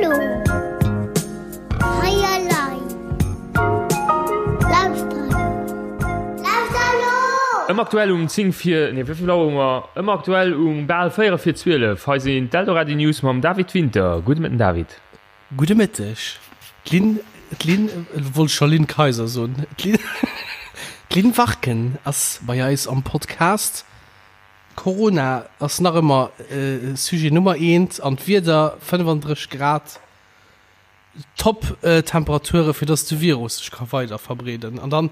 Hallo. Hei elei. Lauschter elo. Lauschter elo! Ëmmer aktuell um 10 vir, nee wéi vill Auer hu mer? Ëmmer aktuell um bal 4 vir 12. Hei sinn d'Eldoradio News mam David Winter. Gudde Mëtten David. Gudde Mëtteg. D'Lynn, d'Lynn, wollt scho Lynn Kayser soen, d'Lynn, d'Lynn Warken ass bei eis am Podcast. Corona ass nach ëmmer Sujet Nummer eent an d'Wieder, 35 Grad, top Temperature fir dass de Virus sech ka weider verbreeden an dann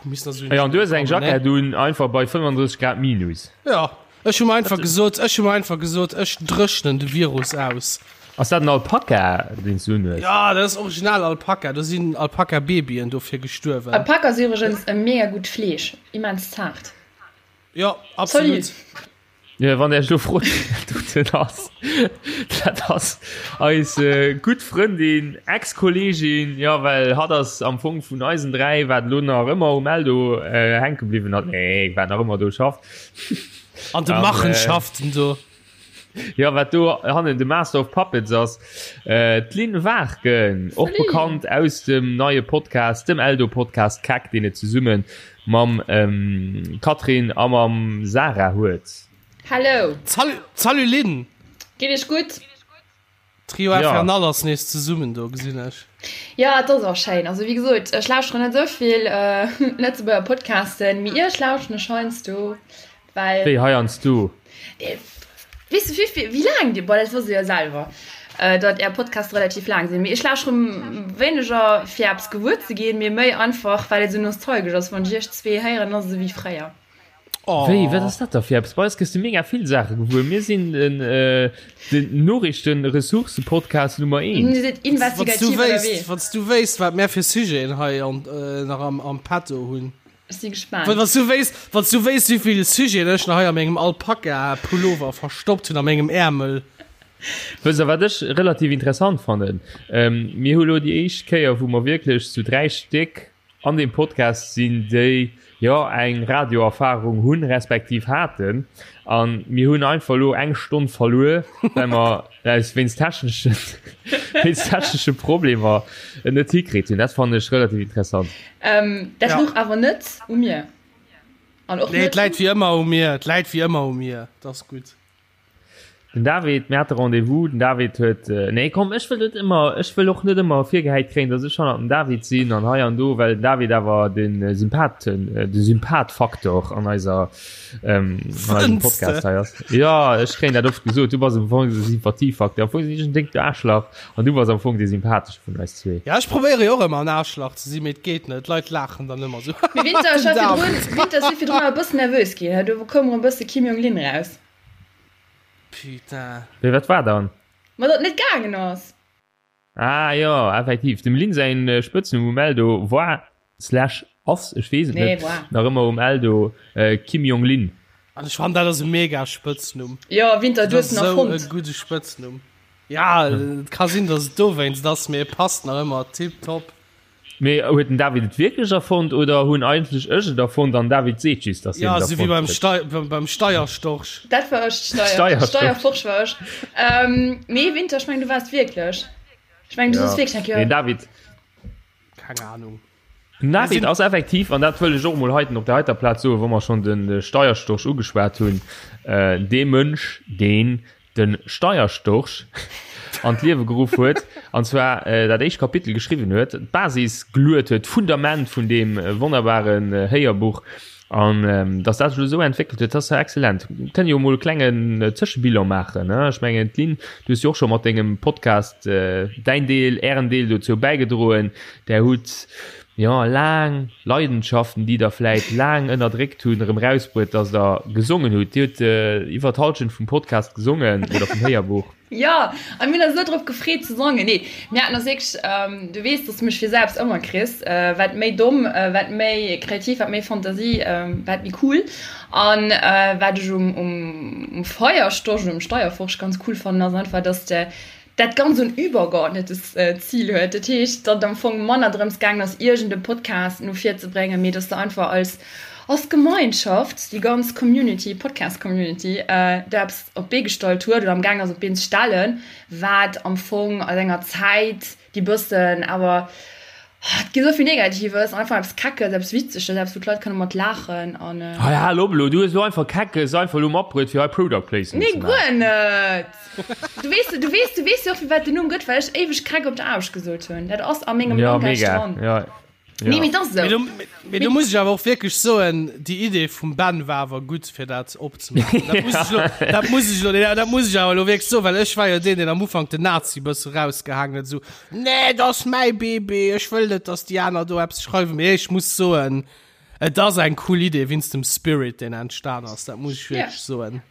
misst nach esou. Jo an du hues eng Jackett un, einfach bei 35 Grad minus. Jo, ech hu mer einfach gesot, ech hu mer einfach gesot, ech dréchnen de Virus aus. Ass dat en Alpaka deen s du unhues? Jo, dat ass original Alpaka, do sinn Alpaka-Babyen dofir gestuerwen. Alpaka ass iwwregens e mega gutt Fleesch, immens zaart. Jo, absolut. Salut. Jo, wann der Iech elo frot, wien dat ass, dat ass eis gutt Frëndin, Ex-Kolleegin, jo, well hatt ass am Fong vun eisen 3, wat elo nach ëmmer um Eldo hänke bliwwen ass, nee, wat nach ëmmer do schafft. An de Machenschaften do. Jo, wat do hannen de Master of Puppets ass, d'Lynn Warken, och bekannt aus dem neie Podcast, dem Eldo-Podcast Keck, deen et zesumme mam Catherine a mam Sarah huet. Hello! Salut, salut Lynn! Geet iech gutt? Trio Infernal ass nees zesummen do, gesinn ech. Jo, et ass och schéin. Also wéi gesot, ech lauschteren net esou vill Lëtzebuerger Podcasten, mee iech lauschteren ech heiansdo, well. Wéi heiansdo? Weess de wéi vill, wéi laang déi, bon dat wosst Dir jo selwer, datt Är Podcaste relativ laang sinn, mee ech lauschtere wéineger fir eppes gewuer ze ginn, mee méi einfach well et esou nostalgesch ass, wann ech iech zwee héieren, ass et esou wéi fréier. Wéi, wat ass dat da fir eppes? Bei eis gëss du mega vill Saache gewuer. Mir sinn den, den Noriichten-Ressourcen-Podcast Nummer eent. Dir sidd investigativ ënnerwee. Wann s du wéisst, wat mär fir Sujeten hei an, nach am, am Petto hunn. Ech si gespaant. Wann s du wéisst, wann s du wéisst, wéi vill Sujeten ech nach hei a mengem Alpaka-Pullover verstoppt hunn, a mengem Äermel. Wësst der, wat ech relativ interessant fannen? Mir hu lo déi éischt Kéier, wou mer wierklech zu 3 Stéck an deem Podcast sinn, déi jo eng Radioerfahrung hunn, respektiv haten, a mir hunn einfach elo eng Stonn verluer, well mer aus wéinst techneschen, wéinst technesche Problemer et net hikritt hunn. Dat fannen ech relativ interessant. Dat louch awer net u mir. An och net. Nee, et läit wéi ëmmer u mir. Et läit wéi ëmmer u mir. Et ass gutt. Den David, mir hate Rendez-vous, den David huet, nee komm, ech wëll net ëmmer, ech wëll och net ëmmer virgehäit kréien, datt ech hannert dem David sinn an hei an do, well den David awer de Sympathen, de Sympathfaktor an eiser, an eisem Podcast hei ass. Jo, ech kréien dat oft gesot, du bass am Fong de Sympathiefaktor, am Fong sinn ech en déckt Aarschlach an du bass am Fong dee Sympathesche vun eis zwee. Ja, ech probéiere jo och ëmmer en Aarschlach ze sinn, mee et geet net, d'Leit laachen dann ëmmer esou, Mee Winter, ech war virdrun, Winter, ech si virdrun awer e bëssen nervös ginn, do koum erëm e bësse Kim Jong Lynn raus. Putain. Wéi, wat war dann? Ma datt net gaangen ass. Ah jo, effektiv. Dem Lynn säin Spëtznumm um Eldo war slash ass, ech weess et net, nach ëmmer um Eldo Kim Jong Lynn. An ech fannen dat ass e mega Spëtznumm. Jo, Winter, du hues en erfonnt. Dat ass esou e gudde Spëtznumm. Ja, et ka sinn, datt et dowéinst ass, mee e passt nach ëmmer tiptop. Mee huet den David et wierklech erfonnt oder hunn eigentlech ech et erfonnt an David seet just, dass hien et erfonnt huet? Ja, esou wéi beim Steierstorch. Dat war ech, Steierforsch war ech. Nee, Winter, ech mengen du waars wierklech. Ech mengen du soss wierklech eng Kéier. Nee, David. Keng Ahnung. Den David ass effektiv, an dat wëll ech och emol heiten op der heiter Plaz soen, wa mer schonn de Steierstorch ugeschwat hunn, dee Mënsch, deen de Steierstorch an d'Liewe geruff huet, an zwar dat éischt Kapitel geschriwwen huet, d'Basis geluet huet, d'Fundament vun deem wonnerbaren Héierbuch, an dass dat sech elo esou entwéckelt huet, dat ass jo exzellent. Kënne jo emol e klengen Zëschebilan maachen, ne? Ech mengen, d'Lynn, du hues jo och scho mat dengem Podcast däin Deel, ären Deel dozou bäigedroen. Där hutt jo, laang Leidenschaften, déi der vläit laang ënnerdréckt hunn, erëm rausbruet, dass der gesongen hutt. Dir hutt iwwer d'Hallschent vum Podcast gesongen oder vum Héierbuch. Jo, a mir hunn eis esou drop gefreet ze sangen. Nee, mir haten eis wierklech, du weess, dass du mech fir selbst ëmmer kriss, wat méi domm, wat méi kreativ, wat méi Fantasie, wat méi cool. An wat ech um, um Feierstorch oder um Steierforsch ganz cool fannen, ass einfach, dass de dat ganz en übergeordnetes Zil huet. Dat heescht, datt et am Fong manner drëms gaangen ass, iergend e Podcast no vir ze bréngen, mee datt se einfach als, Als Gemeinschaft, déi ganz Community, Podcast Community, do eppes op d'Bee gestallt huet oder am gaang ass op d'Been ze stellen, wat am Fong an enger Zäit, déi bëssen awer, et gi esou vill Negatives, einfach eppes Keckes, eppes Witzeges, eppes wou d'Leit kënne mat laachen an. Hei hal op elo, du hues elo einfach Keckes einfach elo matbruet fir hei Product Placement ze maachen. Nee, guer net! Du weess, du weess, du weess jo och firwat den Numm gëtt, well ech éiweg Keck op der Aarbecht gesot hunn. Dat ass a mengem Ja, Langgeist mega, dran. ja. Nee, mee et ass Mee esou. do, mee do muss ech awer och wierklech soen, déi Idee vum Ben war awer gutt, fir dat opzemaachen. Dat muss ech lo, dat muss ech lo, nee, dat muss ech awer elo wierklech soen, well ech war jo deen, deen am Ufank den Nazi bësse rausgehaangen huet, esou, Nee, dat ass mäi Bébé, ech wëll net, dass déi aner do eppes schreiwen. Mee ech muss soen, et ass eng cool Idee wéinst dem Spirit, deen entstan ass, dat muss ech Ja. wierklech soen.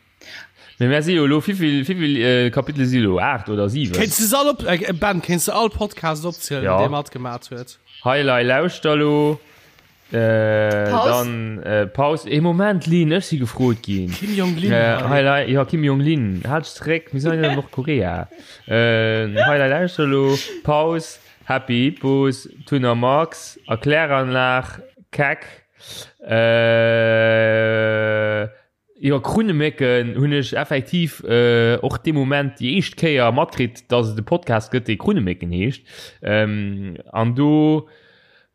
Mee mär si jo elo, wéivill, wéivill Kapitele si elo? 8 oder 7? Kéints du se all op, äh, Ben, kéints du all Podcast opzielen, Ja. dee matgemat huet? Hei, lei, lauschter elo. Äh, Paus. dann äh, Paus. Ee Moment, Lynn, ech si gefrot ginn. Kim Jong-Lin. Äh, hei, lei, ja, Kim Jong-Lin, halt dech zeréck, mir sinn hei an Nordkorea. Äh, hei, lei, lauschter elo. Paus, Happy Hippos, Tun a Max, Erkläranlag, Keck, äh, Jo, Krunnemécken hunn ech effektiv och dee Moment déi éischt Kéier matkritt, dass et e Podcast gëtt, dee Krunnemécken heescht. An do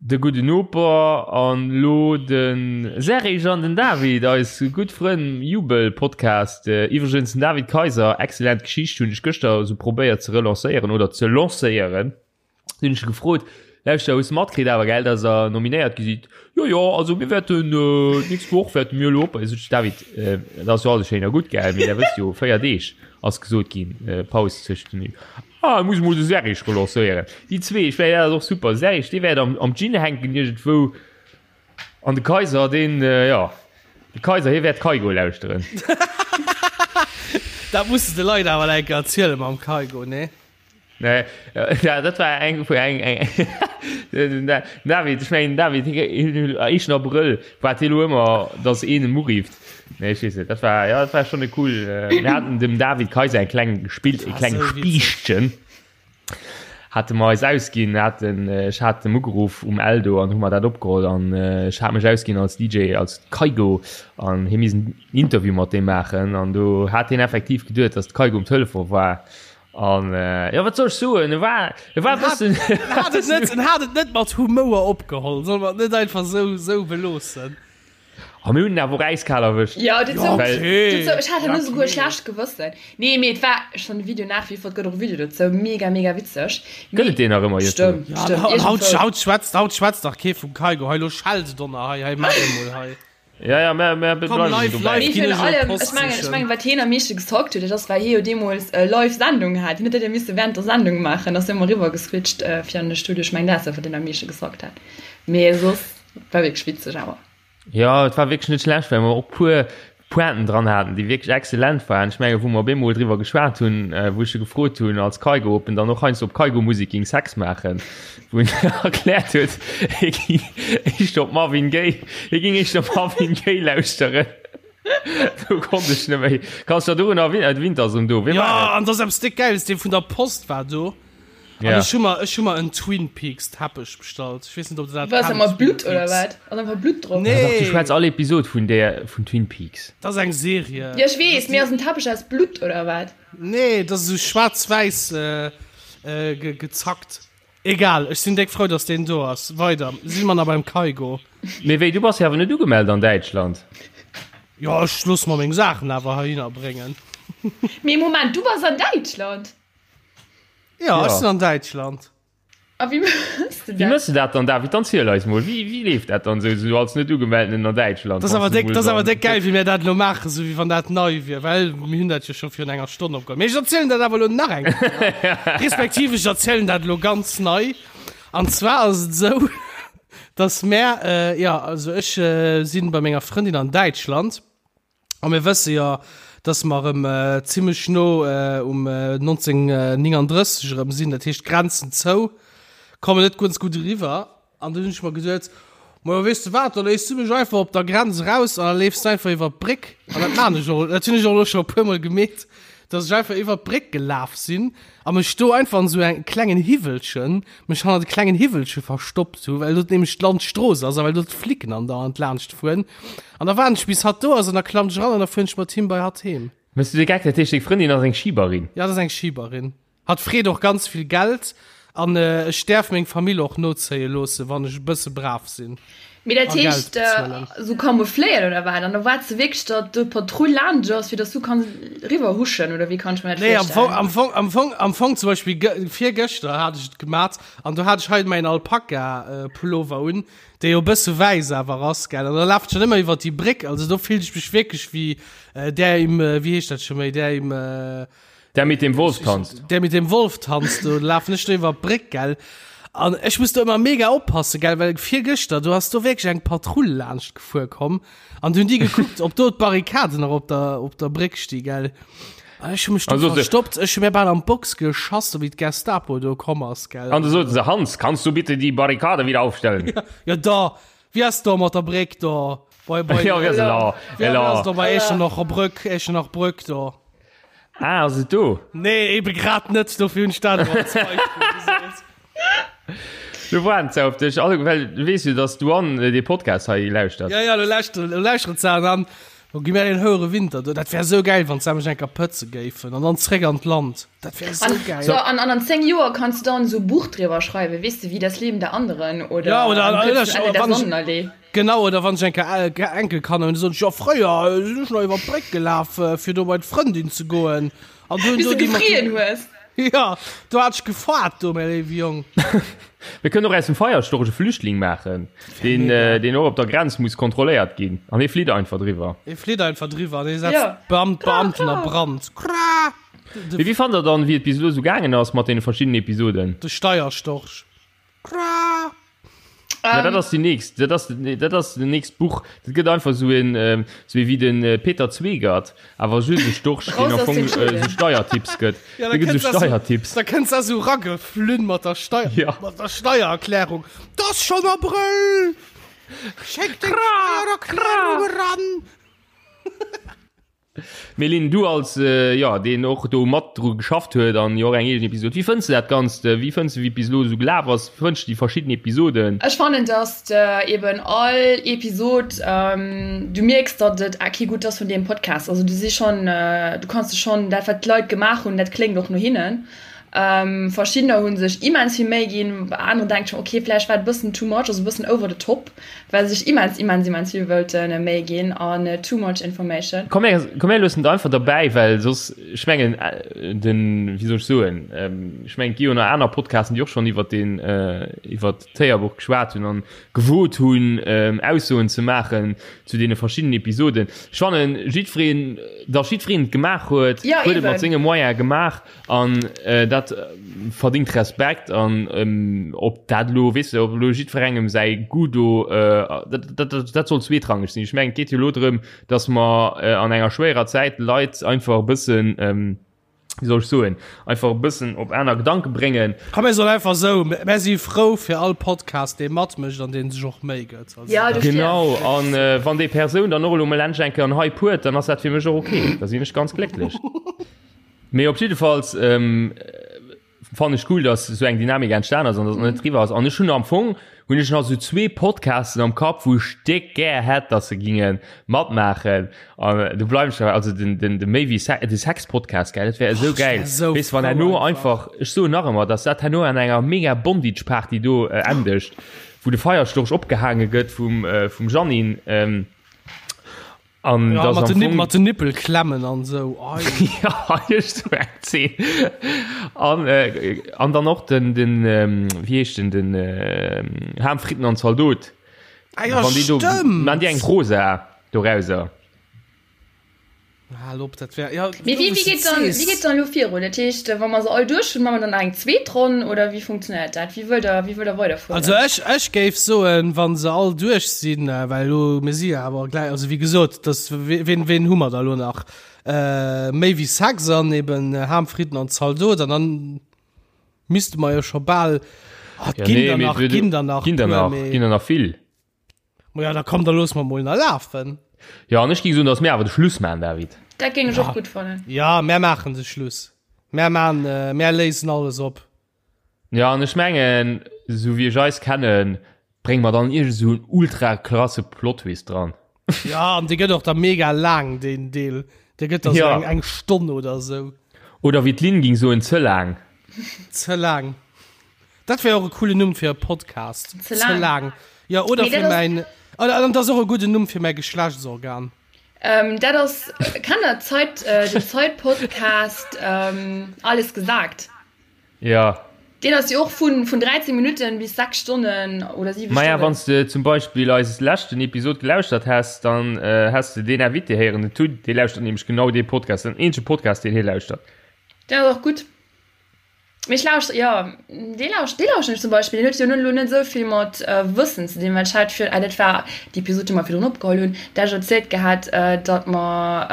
de gudden Noper an elo de Serge an den David, eis gutt Frënn, Jubel-Podcast. Iwwregens den David Kaiser, excellent Geschicht, hunn ech gëschter esou probéiert ze relancéieren oder ze lancéieren. Hunn ech gefrot, Lauschter, hues de matkritt awer, gell, dass der nominéiert gi sidd? Jo, jo, also mir wäerten d'nächst Woch wäerte mir elo op. Sot ech, David, dat ass jo alles schéin a gutt, gell, mee der wësst jo, 4 Deeg ass gesot ginn, Paus tëscht den. Ah, ech muss emol de Serge relancéieren. Déi zwee, ech mengen, dat ass och super. De Serge, dee wäert am, am Gin hänken iergendwou. An de Kaiser, deen, jo, de Kaiser, hie wäert Kygo lauschteren. Dat muss de de Leit awer eng Kéier erzielen mam Kygo, nee? Nee, ja, dat war eng vu eng eng David, ech mengen David éischten Abrëll war et elo ëmmer, datt een em urift. Nee, ech weess net, dat war ja, dat war schonn e cool. Äh, mir haten dem David Kaiser eng kleng gespilt, e kleng Spiichtchen hate mer eis ausginn, haten ech hat em ugeruff um Eldo an hu mer dat opgeholl an ech hat mech ausginn als DJ, als Kygo an hie missen Interview mat deem maachen an do hat hien effektiv geduet, datt d'Kygo um Telefon war An äh, ja, wat soll ech soen? E war, e war En hat, bëssen. en hat et net, en hat et net mat Humouer opgeholl. Solle mer et net einfach sou, sou beloossen? A mir hunn en awer och äiskal erwëscht. Ja, dat sou, Well- dat sou, ech hat Ja, herno souguer e okay. schlecht Gewëssen. Nee, mee et war, ech fann de Video nach wie vor, et gëtt och e Video dozou, mega, mega witzeg. Gëtt et deen nach ëmmer, Jëtto? Stëmmt, Ja, stëmmt, haut, iergendwou. haut schwätzt, haut schwätzt dach kee vum Kygo. Hei, lo schellt et donner, hei, hei, maach emol, hei. Ja, ja, mer, mer Komm, bleiwen live, dobäi. live. Mee Ginn virun ech elo allem, Post ech mengen, ech sichen. mengen, wat hien am meeschte gesockt huet, dat ass, well hie jo deemools live Sendung hat. Hien huet dat jo misse während der Sendung maachen, ass jo ëmmer eriwwer geswitcht fir an de Studio. Ech mengen, dat ass dat, wat hien am meesche gesockt hat. Mee soss war wierklech witzeg awer. Ja, et war wierklech net schlecht, well mer och puer Pointen dran haten, déi wierklech exzellent waren. Ech menge wou mer op eemol driwwer geschwat hunn, wou ech e gefrot hunn als Kygo, ob en dann och heiansdo op Kygo-Musek géing Sex maachen, wou en erkläert huet, hie géing éischter op Marvin Gaye, hie géing éischter Marvin Gaye lauschteren. Do konnt ech net méi. Kanns du der dorun erwin-, Winter ass erëm do. Wee Ja, war et? an dat ass eppes déck Gäiles, dee vun der Post war do. An Ja. ech hu mer, ech hu mer en Twin Peaks Teppech bestallt. Ech weess net, ob der dat Was, kennt, mat Twin Blutt oder Peaks. wat? Ass einfach Blutt drop? Ja, dach, du Nee, schwätz all Episod vun där, vun Twin Peaks. dat ass eng Serie. Ja, ech weess, mee ass en Teppech aus Blutt oder wat? Nee, dat ass esou schwaarz-wäiss äh, äh, ge gezackt. Egal, ech sinn déck frou, dass deen do ass. Weider, si mer nach beim Kygo. Mee wéi, du bass jo awer net ugemellt an Däitschland? Jo, ech loosse mer meng Saachen awer heihinner bréngen. Mee Moment, du bass an Däitschland? Ja, ech sinn an Däitschland. A wéi mëss de Wéi dat? mëss de dat dann, David? Dann ziel eis mol, wéi, wéi leeft dat dann esou, esou als net Ugemeldenen an Däitschland? Dat ass wann awer s du déck, mol dat ass awer dann. déck gäil, wéi mir dat elo maachen, esou wéi wann dat nei wier, well mir hunn dat jo scho virun enger Stonn opgeholl. Mee ech erzielen dat awer elo nach eng Kéier, respektiv ech erzielen dat elo ganz nei. An zwar ass et esou, dass mär, jo, also ech sinn bei menger Frëndin an Däitschland. A mir wësse jo, dass mer erëm zimlech no um 1939 erëm sinn, dat heescht d'Grenzen zou, kommen net ganz gutt eriwwer. An dunn hunn ech mer geduet, Majo, weess de wat, da léiss du mech einfach op der Grenz eraus an da leefs du einfach iwwer d'Bréck. An dat maan ech och, dat hunn ech och elo scho e puermol gemeet. Dass ech einfach iwwer d'Bréck gelaf sinn a mech do einfach an esou engem klengen Hiwwelchen, mech hannert e klengen Hiwwelche verstoppt hu, well do nämlech d'Landstrooss ass a well do d'Flicken andauernd laanscht fueren. An da waarden ech bis hatt do ass an da klammt ech eran an da fueren ech mat him bei hatt heem. Mëss du de Geck? Dat heescht deng Frëndin ass eng Schiberin? Ja, dat ass eng Schiberin. Hatt freet och ganz vill Geld an ech däerf meng Famill och nozéie loossen, wann ech e bësse brav sinn. Mee dat heescht esou camoufléiert oder wat? An da waarts de wierklech, datt do d'Patrull laanscht ass, fir datt s du kanns eriwwer huschen, oder wéi kann ech mer dat virstellen? Nee, am Fong, am Fong, am Fong zum Beispill virgëschter hat ech et gemat an do hat ech hei mäin Alpaka-Pullover un, dee jo e bësse wäiss awer ass, gell? An da lafen ech dann ëmmer iwwer déi Bréck, also do fillt ech mech wierklech wéi där im, wéi heescht dat scho méi, där im, Der mit dem Wolf tanzt. Der mit dem Wolf tanzt, do lafen ech do iwwer d'Bréck, gell. An ech muss do ëmmer mega oppassen, gell, well virgëschter, do ass do wierklech eng Patrull laanscht gefuer komm an du hunn déi gekuckt, ob do d'Barrikaden nach op der, op der Bréck sti, gell. An ech hu mech do Also, se- verstoppt, ech hu mir bal an d'Box geschass, wéi d'Gestapo do komm ass, gell. An du soten se, Hans, kannst du bitte die Barrikade wieder aufstellen? Ja, da, wéi ass do mat der Bréck do? Bei, bei, Ja, wéi ass elo? wéi Elo. ass do bei Echternacher Brück, Echternacher Brück do? Ah, ass et do? Nee, ebe grad net, dofir hunn ech dat elo als Beispill gesot. Du waarden ze op dech, alle, well du weess jo, dass d'Douane dee Podcast hei lauschtert. Ja, ja, lo lauschteren, lo lauschteren se an dann lo gi mär een houere Winter do. Dat wär esou gäil, wann se mech eng Kéier pëtze géifen an dann zréck an d'Land. Dat wär esou An, gäil. so, an, an an 10 Joer kanns du dann esou e Buch driwwer schreiwen, weess de, wie das Leben der anderen oder Ja, oder am an, kürzten Ende der wann ech, Sonnenallee. Genau, oder wann ech eng Kéier Enkelkanner hunn, da soen ech, jo fréier sinn ech nach iwwer d'Bréck gelaf, fir do bei d'Frëndin ze goen. An do hunn Bis do du déi mat gefrien hues. Jo, do hat ech gefaart do, mäi léiwe Jong. Mir kënnen och aus dem Feierstorch e Flüchtling maachen, deen, deen och op der Grenz muss kontrolléiert ginn. An hie flitt einfach driwwer. Hie flitt einfach driwwer an hie setzt d'Beam d'Beamten a Brand. Kra! Mee wéi fannt der dann, wéi et bis elo esou gaangen ass mat deene verschiddenen Episoden? De Steierstorch. Kra! Ja, dat ass déi nächst, dat ass, dat ass den nächst Buch. Dat gëtt einfach sou en, sou ee wéi den Peter Zweegert, awer just e Storch, deen am Fong sou Steiertipps gëtt. Ja, da Dee gëtt kënns sou da sou, Steiertipps. da kënns da sou rageflunn mat der Steier, Ja. mat der Steiererklärung. 't ass schonn Abrëll! Schéck deng Steiererklärung eran! Mee Lynn, du als jo deen och do mat dru geschafft huet an jo och eng eegen Episod, wéi fënns de dat Ganzt? Wéi fënns de wéi et bis elo esou gelaf ass? Wéi fënns de déi verschidden Episoden? Ech fannen dass de eben all Episod du mierks datt et a kee Goût ass vun deem Podcast. Also du si schonn du kanns de schonn dat wat d'Leit gemaach hunn dat kléngt och no hinnen. Verschiddener hu sech immens vill Méi ginn, bei aneren denkt ech mer ok vläicht war et e bëssen too much, also e bëssen over the top. Well sech immens immens immens vill wëllte Méi ginn an too much information. Komm mir, komm mir loossen et einfach derbäi, well soss, ech mengen den, wéi soll ech soen, ech mengen et gi jo nach aner Podcasten, déi och schonn iwwert deen, iwwert d'Héierbuch geschwat hunn an gewot hunn Aussoen ze maachen zu deene verschiddenen Episoden. Ech fannen jiddwereen, datt jiddwereen et gemaach huet, huet et mat senge Moyene gemaach. An dat verdingt Respekt an ob dat elo, weess de, ob elo jiddwerengem säi Goût do, dat, dat, dat soll zweetrangeg sinn. Ech mengen, et geet jo elo drëm, datt mer an enger schwéierer Zäit d'Leit einfach e bëssen, wéi soll ech soen, einfach e bëssen op aner Gedanke bréngen. Komm, mir soen einfach esou, Mär si frou fir all Podcast, dee matmécht an dee sech och Méi gëtt. Also, Ja, dofir. Genau, an wann déi Persoun dann och elo mol endlech eng Kéier en Hype huet, dann ass dat fir mech och ok, da sinn ech ganz glécklech. Mee op jiddefalls fannen ech cool, dass esou eng Dynamik entstan ass an dass et net eriwwer ass. An ech hunn am Fong hunn ech nach esou zwee Podcasten am Kapp, wou ech déck gär hätt, dass se ginge matmaachen. An do bleiwen ech derbäi. Also den, den, de méi wéi Se-, de Sex-Podcast, gell, dat wär esou gäil. Weess de, wann herno einfach, ech soen nach ëmmer, dass dat herno an enger mega Bondage-Party do endegt, wou de Feierstorch opgehaange gëtt vum, vum Jeannine. An ja, das mat am den, Fong, mat den Nippelklemmen an sou. ja, so eng Zeen. An, äh, an dann och den, den ähm, wie heescht den, den äh, Ham, Fritten an Zaldot. Ah, ja, Wann die do, stimmt. man die eng Rosa dorauser. Hal op, dat wär, ja, Mee wéi, wéi geet dann, wéi geet dann elo virun? Dat heescht, wa mer se all duerch hunn, maache mer dann nach eng zweet Ronn oder wéi funktionéiert dat? Wéi wëllt der, wéi wëllt der weiderfueren? Also ech, ech géif soen, wa se all duerch sinn, well elo, mir si jo awer gläich, also wéi gesot, dass, ween, ween hu mer da elo nach? Méi wéi Sex an eben Ham, Fritten an Zaldot an dann misste mer jo scho bal, ah, et Ja, ginn nee, der mee nach, et ginn der nach ginn der puer, nach, mee ginn der nach vill. Ma ja, da komm, da loosse mer mol nach lafen. Jo, an ech géing soen, dass mir awer de Schluss maachen, David. Dat géing ech och gutt fannen. Jo, mär maachen de Schluss. Mär maan, mär léisen alles op. Jo, an ech mengen, esou wéi ech eis kennen, brénge mer dann iergend esou en ultra krasse Plot-Twist dran. Jo, an dee gëtt och da mega laang, deen Deel. Dee gëtt da sou eng, eng Stonn oder esou. Oder wéi d'Lynn ging soen, ze laang. Ze laang. Dat wär och e coolen Numm fir e Podcast. Ze laang. Ze laang. Jo, oder fir mäin, an dat ass och e gudden Numm fir mäi Geschlechtsorgan. Ähm, dat ass, kennt der Zeit, äh, den Zeit-Podcast ähm, Alles gesagt? Ja. Deen ass jo och vun, vun 13 Minuten bis 6 Stonnen oder 7 Maja, Stonnen. wann s de zum Beispill eis leschten Episod gelauschtert häss, dann äh, häss de deen Invité héieren, den Tut, dee lauschtert nämlech genau dee Podcast, den eenzege Podcast, deen hie lauschtert. Deen ass och gutt. Mee ech lauschter, jo, dee lauscht, dee lauschten ech zum Beispill. Deen huet jo elo net esou vill mat Wëssen ze dinn, well ech hat fir, ah dat war déi Episod, déi mer virdrun opgeholl hunn, där ech erzielt gehat, datt mer,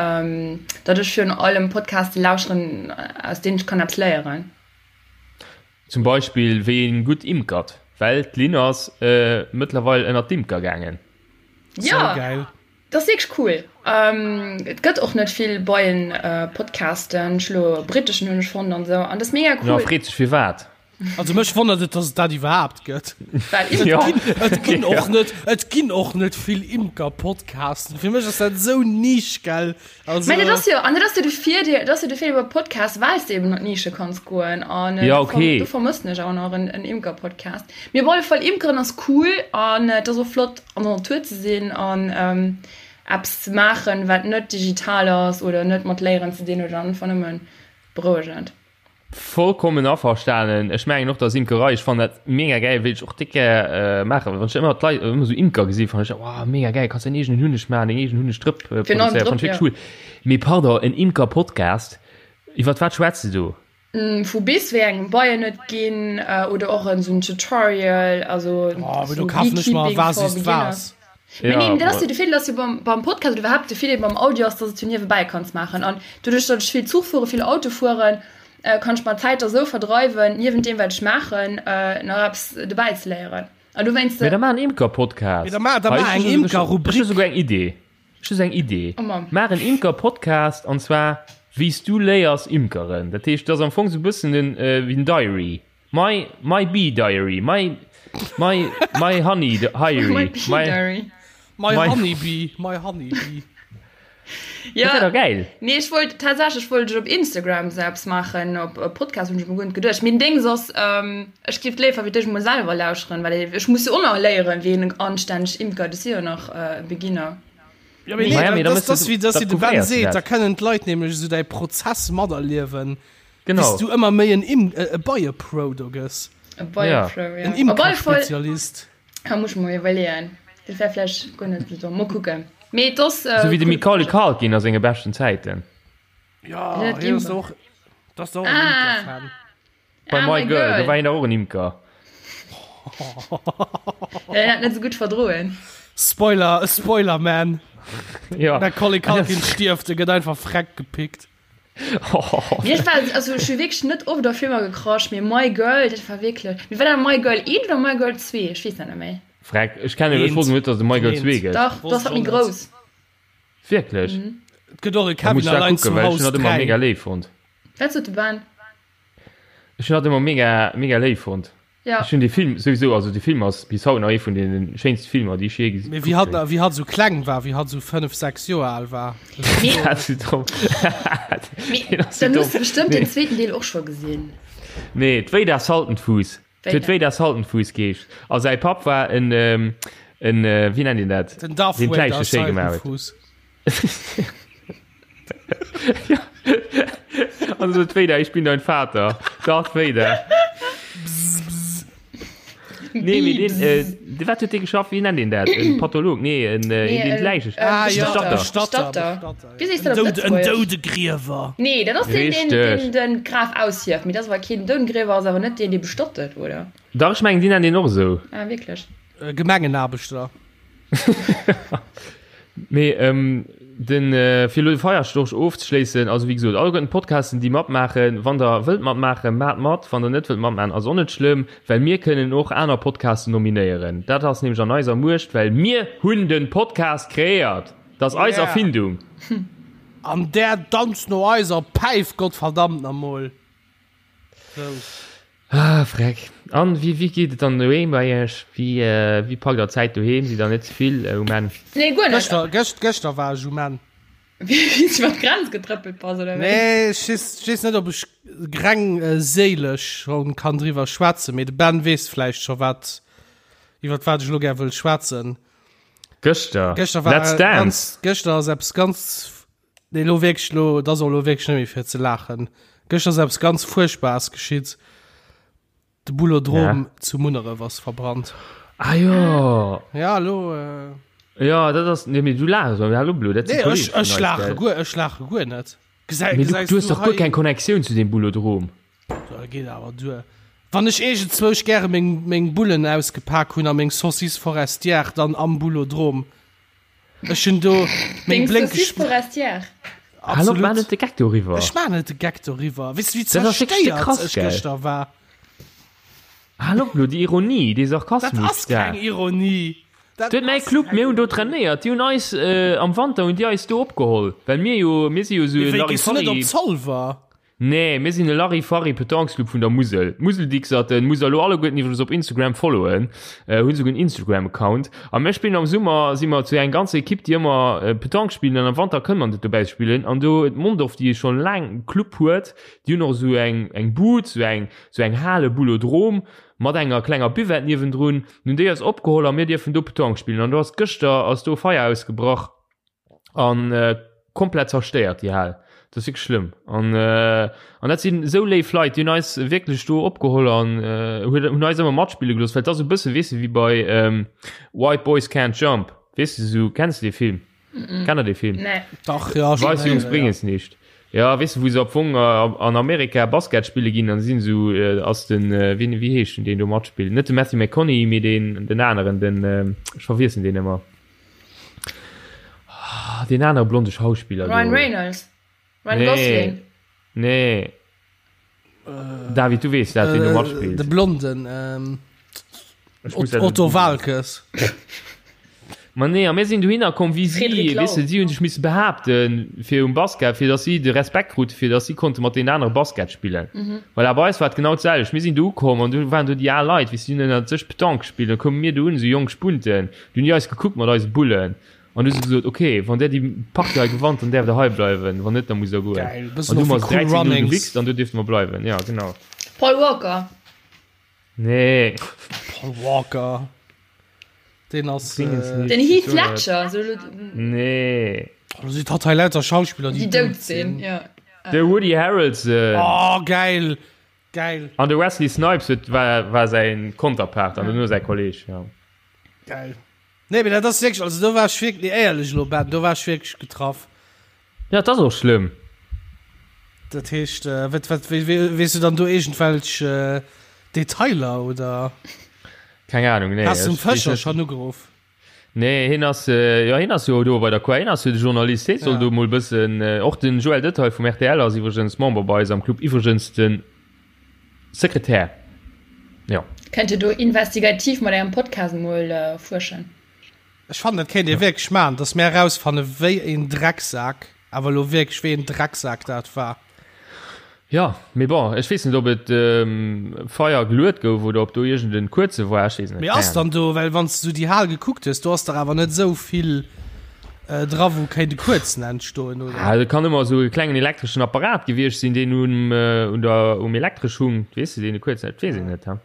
datt ech virun allem Podcaste lauschteren, aus deenen ech kann eppes léieren. Zum Beispill wéi een gutt imkert, well d'Lynn ass mëttlerweil ënnert d'Imker gaangen. Jo! Sou gäil. Dat ass wierklech cool. Et gëtt och net vill Beien-Podcasten. Ech elo e britteschen hunn ech fonnt an esou. An dat ass mega Jo, cool. freet sech firwat. Also mech wonnert et, dass et dat iwwerhaapt gëtt. Well Et Ja. ginn, et ginn Ja. och net, et ginn och net vill Imker-Podcasten. Fir mech ass dat esou Nisch, gell? Also, Mä dat ass jo, an dat ass jo de Virdeel, dat ass jo de Virdeel beim Podcast, well s de eben an d'Nische kanns goen. An Ja, do verm, okay. do vermëssen ech awer nach en, en Imker-Podcast. Mee op alle Fall, Imkeren ass cool an et ass och flott an der Natur ze sinn an eppes ze maachen, wat net digital ass oder net mat Léieren ze dinn huet an einfach nëmme berouegend. Vollkommen averstanen. Ech mengen och, dass Imkerei, ech fannen dat mega gäil, wéilt ech och déck gär maachen. Wann ech ëmmer d'Leit ëmmer esou Imker gesinn, fannen ech, wow, mega gäil, kanns däin eegenen Hunneg maachen, deng eegen Hunnegdrëpp produzéieren, fannen ech wierklech cool. Mee pardon, en Imker-Podcast, iwwert wat schwätzt de do? Vu bis wéi engem Beien et ginn oder och en sou Tutorial, also Oh, sou do kafen ech mer Beekeeping Was for ist Beginners. was. Mee Ja, nee, dat ass jo ma de Virdeel ass jo beim, beim Podcast oder iwwerhaapt de Virdeel beim Audio ass, dass et jo niewebäi kanns maachen. An doduerch, datt ech vill Zuch fueren, vill Auto fueren, kann ech mer d'Zäit da sou verdreiwen, niewent deem wat ech maachen, nach eppes dobäi ze léieren. An dowéinst. Mee da maach en Imker-Podcast. Mee da maach, da Hei, maach ech eng hu souguer- Ech hu Imker-Rubrik. souguer eng Idee. Ech hu sou eng Idee. Oh Mann. Maach en Imker-Podcast, an zwar wéi s du léiers imkeren. Dat heescht, dat ass am Fong sou e bëssen den, wéi den Diary. My, my bee diary. My, my, my honey diary. My bee diary. My, My- honeybee, my honeybee. Dat wär Ja, doch geil. nee, ech wollt tatsächlech wollt ech op Instagram sou eppes maachen, op e Podcast hunn ech mer guer net geduecht. Mee den Dings ass, ähm, ech géif léifer wéi dech emol selwer lauschteren, well ech muss jo och nach léieren, wéi een anstänneg imkert. Ech si jo nach e Beginner. Ja, mee nee, Maja, mee da dat, mëss dat ass du- wéi, dat da wéi de Ben prouvéiers du seet, dat. da kënnen d'Leit nämlech esou däi Prozess materliewen, Genau. bis du ëmmer méi en Im e Beiepro do gëss. E Beiepro, ja. En Op alle Fall Imkerspezialist. Ah, muss ech mer iwwerleeën. Dat wär vläicht guer net esou domm. Mol kucken. Mee et ass. Sou wéi de Macaulay Culkin a senge beschten Zäiten. Ja, Net hien ass Imker. och, dat ass och en Ah. Imkerfan. Bei Ah, My My Girl, do Girl. war hien dach och en Imker. Hien hat net esou gutt verdroen. Spoiler, Spoiler, man. Ja. Macaulay Culkin stierft, e gëtt einfach freck gepickt. Mee ech war, also ech hu wierklech net oft op Filmer gecrushed, mee My Girl, dat war wierklech. Mee war dat My Girl 1 oder My Girl 2? Ech weess dat net méi. Freck, ech kennen, ech wosst net, dass et My Girl 2 gëtt. Dach, dat ass dat méi grouss. Wierklech? Et gëtt och e Da muss Kevin ech dat allein kucken, zu well ech Haus hunn dat ëmmer 3. mega léif fonnt. Wat sot de Ben? Ech hunn dat ëmmer mega, mega léif fonnt. Ja. Ech hunn dee Film souwisou, also dee Film ass bis haut nach ee vun deene schéinste Filmer, déi ech jee gesi Mee wéi hatt, wéi hatt esou kleng war, wéi hatt esou 5, 6 Joer al war. Mee, Dat ass domm. mee Deen ass sou dann domm. hues de bestëmmt Nee. den zweeten Deel och scho gesinn. Nee, d'Wéida Saltenfuuss. Et huet Wéida. Wéida Saltenfuuss geheescht. A säi Papp war en, en, wéi nennt een dat? Den Darth Deen Vader d'Läiche schéi gemaach huet. Saltenfuuss. Also Darth Vader, ich bin dein Vater. Darth Vader. Nee, mee deen, äh, de wat huet dee geschafft? Wéi nennt een dat? En Patholog? Nee, en, äh, een deen d'Läiche. Ah, ja, Bestatter. Bestatter. Bestatter. Bestatter, Wéi ja. sees du dat op En Doud- en Lëtzebuergesch? Doudegriewer. Nee, dat ass deen, deen, Richteg. deen den Graf aushieft. Mee dat ass awer keen Doudegriewer, ass awer net deen, dee bestattet, oder? Dach, ech mengen, déi nennen deen och esou. Ah, wierklech? Äh, Gemengenaarbechter. Mee ähm, den, äh, fir elo de Feierstorch ofzeschléissen, also wéi gesot, alleguerten d'Podcasten, déi matmaachen, wann der wëllt matmaachen, maacht mat, wann der net wëllt matmaachen, ass och net schlëmm, well mir kënnen och aner Podcasten nominéieren. Dat ass nämlech an eiser Muecht, well mir hunn den Podcast kreéiert! Dat ass eis Yeah. Erfindung. An där danzt no eiser Päif, Gottverdammt namol. Sou. Ah, freck. An wéi, wéi geet et dann doheem bei iech? Wéi, äh, wéi packt der d'Zäit doheem? Sidd der net ze vill äh, um Enn? Nee, guer net. Gëschter, gëscht, gëschter war ech um Enn. Wéi s du iwwer d'Grenz getrëppelt bass, oder wéi? Nee, ech weess, ech weess net, ob ech greng äh, séilesch schon kann driwwer schwätzen, mee de Ben weess vläicht scho wat, iwwer wat ech elo gär wëll schwätzen. Gëschter? Gëschter war Let's Dance! ganz, gëschter ass eppes ganz, nee, lo wierklech, lo, dat ass och lo wierklech net méi fir ze laachen. Gëschter ass eppes ganz Fuerchtbares geschitt. De Boulodrom Ja. zu Munneref ass verbrannt. Ah jo! Ja, lo. Äh, Ja, dat ass, nee, mee du laachs, mä hallo Blo, dat si nee, ech, Kollege vun ech eis, laache gell? guer, ech laache guer net. Gesäi, Mee du, gesäis du hues du dach guer hei? keng Connectioun zu deem Boulodrom. Da geet awer duer. Wann ech iergendzwousch gäre meng, meng Bullen ausgepak hunn a meng Saucisse forestière dann am Boulodrom. Ech hunn do meng Deng blénkeg Saucisse forestière. Hallo, maach Absolut. net de Geck doriwwer. Ech maachen net de Geck doriwwer. Weess du, wéi Dat ass wierklech de zerstéiert krass, ech gell? gëschter war? Hallo, Blo, déi Ironie, dee Dat Sarkasmus ass da. keng Ironie. Dat Du huet mäi ass Club, keng mir hunn do Ironie. trainéiert, déi hunn eis am Wanter hunn déi eis do opgeholl, well mir jo, mir si jo esou Mee e wéi, gees du net op Larifari. Zolwer? Nee, mir sinn e Larifari-Petanquesclub vun der Musel. D'Museldixerten musst der elo alleguerten iwwregens op Instagram followen, hunn esouguer en Instagram-Account. A mir spillen am Summer, si mer zu eng ganzer Ekipp, déi ëmmer Petanque spillen an am Wanter kënne mer net dobäi spillen. An do huet Mondorf, déi schonn laang e Club huet, déi hunn och esou eng eng Bud, esou eng esou eng Hale Boulodrome mat enger klenger Buvette niewendrun. Hunn déi eis opgeholl a mir dierfen do Petanque spillen. An do ass gëschter ass do Feier ausgebrach. an äh, komplett zerstéiert déi Hal. Dat ass wierklech schlëmm. An, äh, an dat sinn esou léif Leit, déi hunn eis wierklech do opgeholl an äh, hunn hunn eis ëmmer matspille gelooss, well et ass e bësse weess de wéi bei ähm, White Boys Can't Jump. Weess de sou, kenns de dee Film? Mm -mm. Kennt der dee Film? Nee. Dach, ja, schon Weiss Jungs héieren, bréngen ja. es nicht. Ja, weess de, wou se am Fong äh, an Amerika Basket spille ginn, an sinn sou äh, ass den äh, wien, wéi heescht den, deen do matspillt? Net de Matthew McConaughey, mee deen den aneren, den äh, ech verwiessen deen ëmmer. Ah, den anere blonde Schauspiller. Ryan do. Reynolds. Ryan Nee. Gosling. Nee. David, du weess dat, wien do Äh, matspillt. de Blonden, ähm, Ech muss dat Otto googlen. Waalkes. Ma nee, a mir sinn dohinner komm wéi si, Frédéric Lau. weess de, si hunn sech misse behaapten fir um Basket, fir datt si de Respekt krute, fir datt si konnte mat deenen anere Basket spillen. Voilà, bei eis war et genau d'selwecht. Mir sinn do ukomm an do waren do déi al Leit, weess de, déi hunn ënnert sech Petanque gespillt. Da koume mir do un, esou jonk Spunten, Du hunn déi eis gekuckt mat eise Bullen an du hu se gesot, ok, wann där déi Partie hei gewannt, dann däerft der hei bleiwen, wann net, da musst der goen. Geil, An bëssen du och hu mer wéi se Cool 13 0 Runnings. gewichst an du dierfte mer bleiwen, ja genau. Paul Walker. Nee. Paul Walker. Deen ass. Dingens Äh, nicht. Den Heath Ledger. So, Nee. oh, da sieht hat hei lauter Schauspieler, déi déi dout sinn. Ja. De Woody Harrelson. Oh, geil. Geil. An de Wesley Snipes huet, war, war säin Konterpart an duerno säi Kolleg, ja. Geil. Nee, mee dat ass wierklech, also do war ech wierklech, nee, éierlech elo, Ben, do war ech wierklech getraff. Ja, et ass och schlëmm. Dat heescht, äh, wat, wat, wéi, wéi, weess du dann do iergendwelch äh, Detailer oder? Keng Ahnung, nee. Has du den ech weess Fëscher net. schonn ugeruff? Nee, hien ass, jo, hien ass jo do bei der Quai, hien ass jo de Journalist, hie soll Ja. do mol bëssen, och den Joël Detaille vum rtl ass iwwregens Member bei eis am Club, iwwregens de Sekretär, jo. Kennt Dir do investigativ mat Ärem Podcast mol fuerschen? Ech fannen, dat kéint ee wierklech maachen, dass mär erausfanne wéi een Drecksak, awer elo wierklech wéi een Drecksak dat war. Jo, mee bon, ech weess net, ob et Feier geluet gouf oder ob do iergend en kuerze war, ech weess net, Mee ass keng Ahnung. dann do, well wann s du déi Hal gekuckt hues, do ass dach awer net esou vill dra wou kéint e kuerzen entstoen, oder? Ah, et kann ëmmer esou e klengen elektreschen Apparat gewiescht sinn, deen um, un der, um Elektresch hung, weess de, deen e kuerzen, dat weess een net, ha.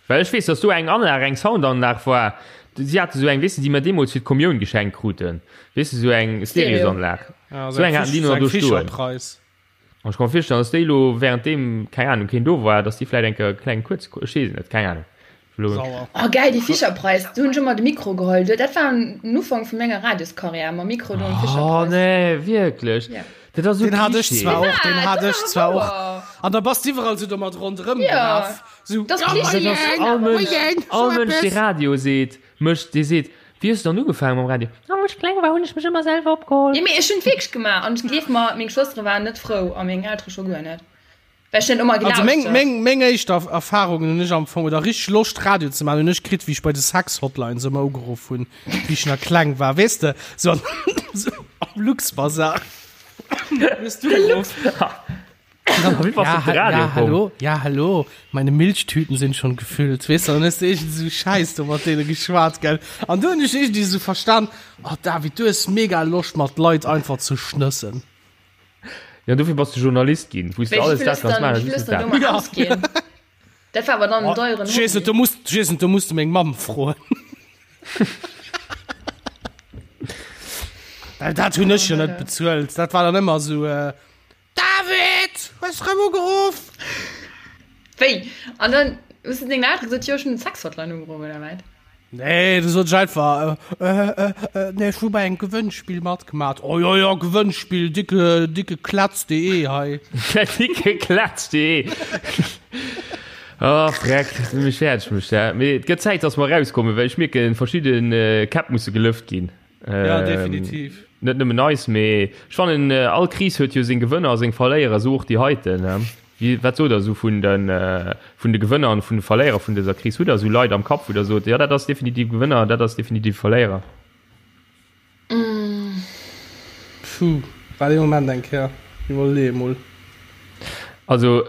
Well ech weess, dass do eng Anlag, eng Soundanlag war, si hate sou eng, weess de, déi mer deemools fir d'Kommioun geschenkt kruten, weess de, sou eng Stereosanlag, Ja, sou eng haten déi nach do stoen. Fischerpreis. An ech ka mer virstellen, dass déi elo währenddeem, keng Ahnung, keen do war, dass déi vläit eng Kéier e klengen Kuerz, ech weess et net, keng Ahnung. Elo. Sauer. Oh geil, déi Fischerpreis, do hunn ech ëmmer de Mikro geholl. Dat war den Ufank vu menger Radioskarriär, mam Mikro do am Oh Fischerpreis. nee, wierklech? Ja. Dat ass esou Den hat ech Klischee. zwar och, den Wat? hat Dat ech ass awer zwar och. wouer. An da bass d'iwwerall sou domat ronderëm Ja. gelaf. Sou, Dat ass ja, Klischee. Dat ass all Mënsch, all Mënsch, dee Radio seet, mécht, dee seet, Wéi hues du dann ugefaangen mam Radio? Oh, wou ech kleng war, hunn ech mech ëmmer selwer opgeholl. Jo, mee ech hunn et wierklech gemaach an gleef mer, meng Schwëstere waren net frou a meng Eltere scho guer net, well ech net ëmmer Also meng, gelauschtert. meng, meng éischt Erfahrungen hunn ech am Fong, oder richteg Loscht Radio ze maachen, hunn ech kritt, wéi ech bei de Sex-Hotlines ëmmer ugeruff hunn, wéi ech nach kleng war, weess de, sou an. Luxbazar. Hues du geruff? Wéi bass du op de Radio ja, komm? hallo, ja, hallo, meine Milchtüten sind schon gefüllt. Weess du, dann hues du iergend esou Schäiss do mat deene geschwat, gell? An du hunn ech iergendwéi esou verstan, oh David, du hues mega Loscht mat Leit einfach ze schnëssen. Ja, dofir bass du Journalist ginn, wou s du Wéi alles vill dat ass kanns dann, maachen, wéi vill just ass net dann dat. domat ausginn? Dat war awer dann en deieren Ech weess net, Hobby. do muss, ech weess net, do muss du meng Mamm froen. Well dat hunn ech jo net bezuelt. Dat war dann ëmmer esou, äh, David, hues rëm ugeruff? Wéi? An dann hues du dengen Eltere gesot, jo, ech hunn den Sexhotline ugeruff, oder wat? Nee, du sot ech einfach, äh, äh, äh, nee, ech hu bei engem Gewënnspill matgemat. Oh jo, jo, Gewënnspill, dicke, dicke Klatz.de hei. Dicke Klatz.de. Oh, Freck, dat huet mech fäerdeg gemacht, ja. Mee et gëtt Zäit, dass mer erauskommen, well ech mierken, verschidde Käpp musse gelëft ginn. Ja, definitiv. Net nëmmen eis, mee ech fannen, all Kris huet jo seng Gewënner a seng Verléierer, esou och déi heiten. Wéi, wat sot Der esou vun de, vun de Gewënner an vun de Verléierer vun dëser Kris? Hutt Der esou Leit am Kapp, wou Der sot, jo, dat ass definitiv Gewënner, dat ass definitiv Verléierer? Puh, waart ee Moment eng Kéier, iwwerleeë mol. Also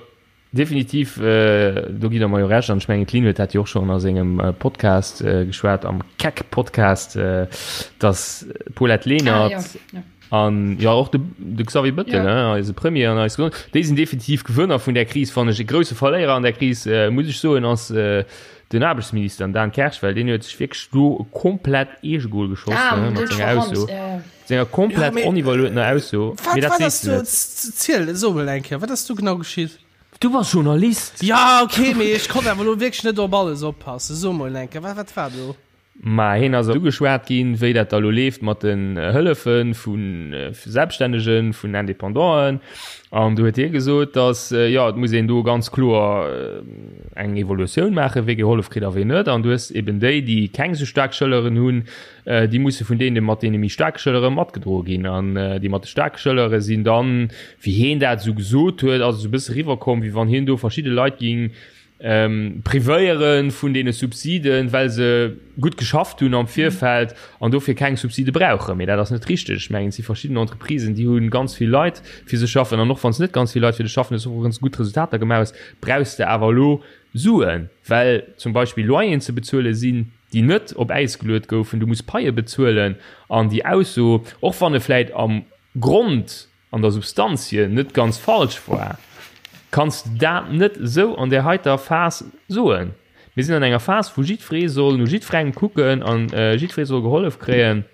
Definitiv, do gitt Der mer jo Recht. An ech mengen, d'Lynn huet dat jo och schonn a sengem Podcast geschwat, am Keck-Podcast, datt d'Paulette Lenert an jo och de Xavier Bettel, eise Premier an eis Gesond, déi sinn definitiv Gewënner vun där Kris, fannen ech. E grousse Verléierer an där Kris, muss ech soen, ass den Aarbechtsminister, den Dan Kersch, well deen huet sech wierklech do komplett Eegegol geschoss mat senger Ausso, senger komplett oniwwerluetener Ausso. Wat, wat ass do, ziel, so mol eng Kéier, wat ass do genau geschitt? Du bass Journalist! Ja, okay, mee ech konnt awer elo wierklech net op alles oppassen. So mol eng Kéier, wat, wat war do? Ma hien ass ugeschwat ginn, wéi dat da lo leeft mat den Hëllefe vu Selbststännegen, vun Independanten. An do huet hie gesot, datt, jo, et muss een do ganz kloer eng Evolutioun maachen, wee gehollef kritt a wee net. An du hues eben déi, déi keng esou staark Schëlleren hunn, déi musse vun deene mat deene méi staarke Schëllere matgedroe ginn. An déi mat de staarke Schëllere sinn dann, wéi hien dat esou gesot huet, ass et esou e bësse eriwwerkomm, wéi wann hien do verschidde Leit géing privéiere vun deene Subsiden, well se gutt geschafft hunn am Virfeld an dofir keng Subside brauchen. Mee dat ass net richteg. Ech mengen, et si verschidden Entreprisen, déi hu ganz vill Leit fir sech schaffen. An och wann s net ganz vill Leit fir dech schaffen, hues och ganz gutt Resultater gemaach hues, brauchs de awer elo Suen, well zum Beispill Loyeren ze bezuele sinn, déi net op Äis geluet goufen. Du muss Paie bezuelen. An déi Ausso, och wann e vläit am Grond an der Substanz hier net ganz falsch war, kanns de dat net esou an där heiter Phas soen. Mir sinn an enger Phas, wou jiddweree soll no jiddwerengem kucken an jiddweree soll gehollef kréien.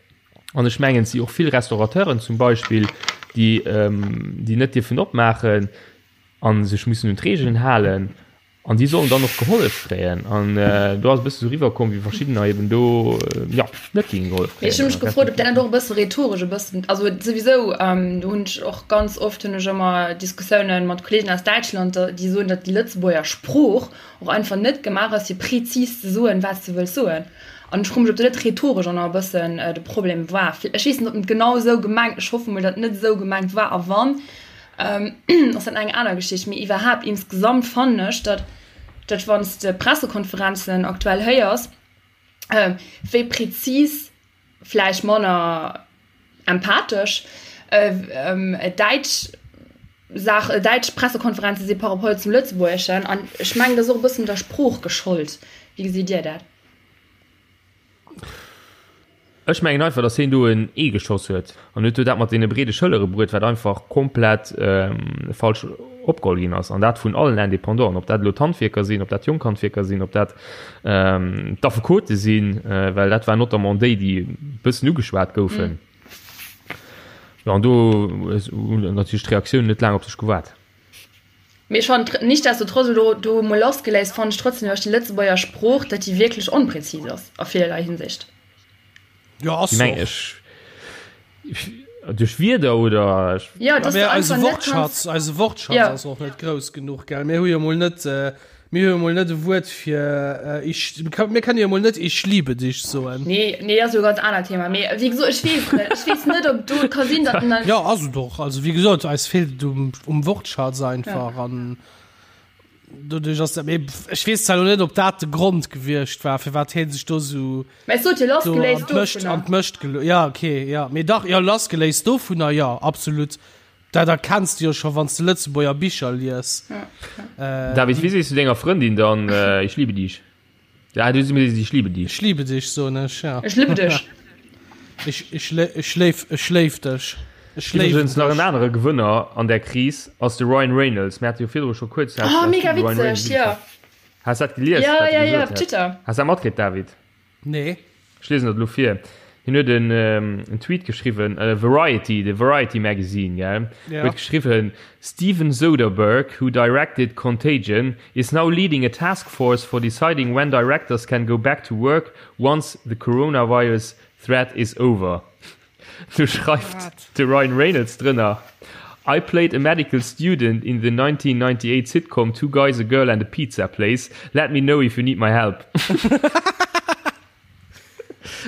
An ech mengen, et si och vill Restaurateuren zum Beispill, déi, déi net dierfen opmaachen a sech mussen un d'Regeln halen. An déi sollen dann och gehollef kréien. An do ass e bësse sou riwwerkomm, wéi verschiddener eben do, jo, net géinge gehollef Mee ech hu mech kréien. gefrot, ob dat net och e bësse rhetoresch e bëssen, also souwisou, do hunn ech och ganz oft hunn ech ëmmer Diskussiounen mat Kollegen aus Däitschland, déi soen, datt déi Lëtzebuerger Sprooch och einfach net gemaach ass, fir prezis ze soen, wat s de wëlls soen. An ech froe mech, ob dat net rhetoresch och nach e bëssen de Problem war. Ech weess net, ob en et genau esou gemengt, ech hoffe mol, datt et net esou gemengt war. A wann, ass dat eng aner Geschicht. Mee iwwerhaapt insgesamt fannen ech, datt, datt wann s de Pressekonferenzen aktuell héiers, wéi prezis, vläicht manner empathesch, däitsch Saach, däitsch Pressekonferenze si par rapport zum Lëtzebuergeschen. An ech mengen, dat ass och e bëssen der Sprooch geschollt. Wéi gesitt Dir dat? Ech mengen einfach, datt hien do en Ee geschoss huet an huet do dat mat deene breede Schëllere bruet, wat einfach komplett falsch opgeholl ginn ass, an dat vun allen Independanten, ob dat elo d'Handwierker sinn, ob dat d'jonk Handwierker sinn, ob dat d'Affekote sinn, well dat waren notamment déi, déi e bëssen ugeschwat goufen. Jo, an do hunn natierlech d'Reaktiounen net laang op sech gewaart. Mee ech fannen nichtsdestotrotz, elo do emol lassgeléist, fannen ech trotzdem iwwer déi Lëtzebuerger Sprooch, datt déi wierklech onpräzis ass a villerlei Hinsicht. Jo, ass Wéi se meng och. ech? Duerch Wierder oder? Jo, dass Mä du eise einfach net Wortschatz, kanns. eise Wortschatz Jo. ass och net grouss genuch, gell? Mir hu jo mol net, mir hu jo mol net e Wuert fir ich, mir kënne jo mol net ich liebe dich soen. Nee, nee, ass jo e ganz anert Thema. Mee wéi gesot, ech weess net, ech weess net, ob do, et ka sinn, datt en dann. Jo, ass et och. Also wéi gesot, eis feelt et um, um Wortschatz einfach an. Doduerch ass dat, mee ech weess zwar elo net, ob dat de Grond gewiescht war, firwat hie sech do sou Mä ech sot jo do an lassgeléist d'Mëscht, dovunner. an d'Mëscht gelo-, ja, okay, ja, mee dach, jo, lassgeléist dovunner, jo, absolut. Dat erkenns de jo scho wann s de Lëtzebuerger Bicher lies. David, wéi sees du denger Frëndin dann Ich liebe dich? Ja, du sees Ich liebe dich. Ich liebe dich, soen ech, ja. Ech liebe dech. Ich, ich, ich léif, ech léif dech. Ech léiwen Iwwregens nach en dech. anere Gewënner an där Kris ass de Ryan Reynolds. Mir hate jo virdru scho kuerz Oh, mega Ryan Reynolds witzeg, jo. Has dat gelies, Ja, wat e ja, ja, gesot op hat? Twitter. Has dat matkritt, David? Nee. Ech liesen dat elo vir. Hien huet en, en Tweet geschriwwen, Variety, de Variety Magazine, gell, Ja. huet geschriwwen, Steven Soderbergh, who directed Contagion, is now leading a task force for deciding when directors can go back to work once the coronavirus threat is over. Du schreift de Ryan Reynolds drënner, I played a medical student in the 1998 sitcom Two Guys, a Girl and a Pizza Place. Let me know if you need my help.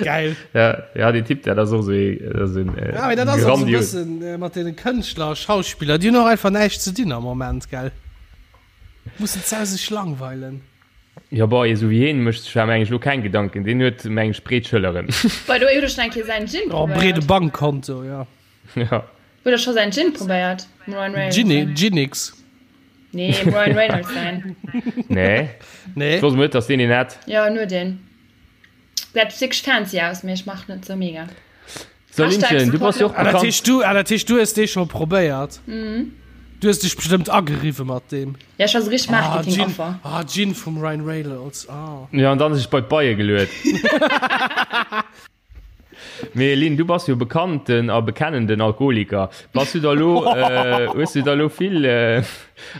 Geil. Ja, ja, den Typ, dat ass och sou ee, dat ass en, Ja, mee dat ass och sou e grandios. bëssen äh, mat deene Kënschtler a Schauspiller, déi hunn och einfach näischt ze dinn am Moment, gell? Mussen ze sech langweilen. Jo, bon, ee sou wéi hien mécht sech awer, meng ech, elo keng Gedanken. Deen huet, meng ech, breet Schëlleren. By the way, hutt der schonn eng Kéier säin Gin Oh, breede probéiert? Bankkonto, ja. Ja. Hutt der scho säin Gin probéiert? Dem Ryan Reynolds Ginny, säin? Ginix. Nee, dem Ryan Reynolds säin. Nee. Nee. Ech wosst emol net, dass deen een hätt. Jo, en huet een. Gesäit wierklech fancy aus, mee ech mach net sou mega. So, Linchen, du bass jo och Ah, dat bekannt. heescht du, ah, dat heescht du hues dee scho probéiert? Mhm. Du hues dech bestëmmt ageriwwe mat deem. Ja, ech war sou richteg Ah, Marketing Gin, Affer. ah, Gin vum Ryan Reynolds, ah. Ja, an dann sech bei d'Beie geluet. Mee Lynn, du bass jo bekannten a bekennenden Alkoholiker. Bass du da lo, äh, hues du da lo vill, äh,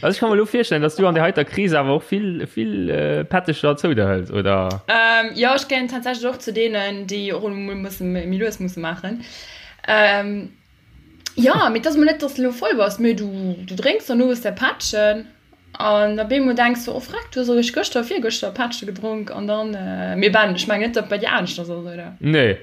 also ech ka mer lo virstellen, dass du an der heiter Kris awer och vill, vill äh, Pättecher zou der hëls, oder? Ähm, jo, ech gehéieren tatsächlech och zu deenen, déi och emol musse méi lues musse maachen. Ähm, jo, mee et ass emol net, dass de elo voll bass, mee du, du drénks dann owes däi Pättchen an op eemol denks du, oh freck, du hues eréischt gëschter, virgëschter e Pättche gedronk an dann, mee Ben, ech mengen net, datt et bei dir aneschters ass, oder? Nee.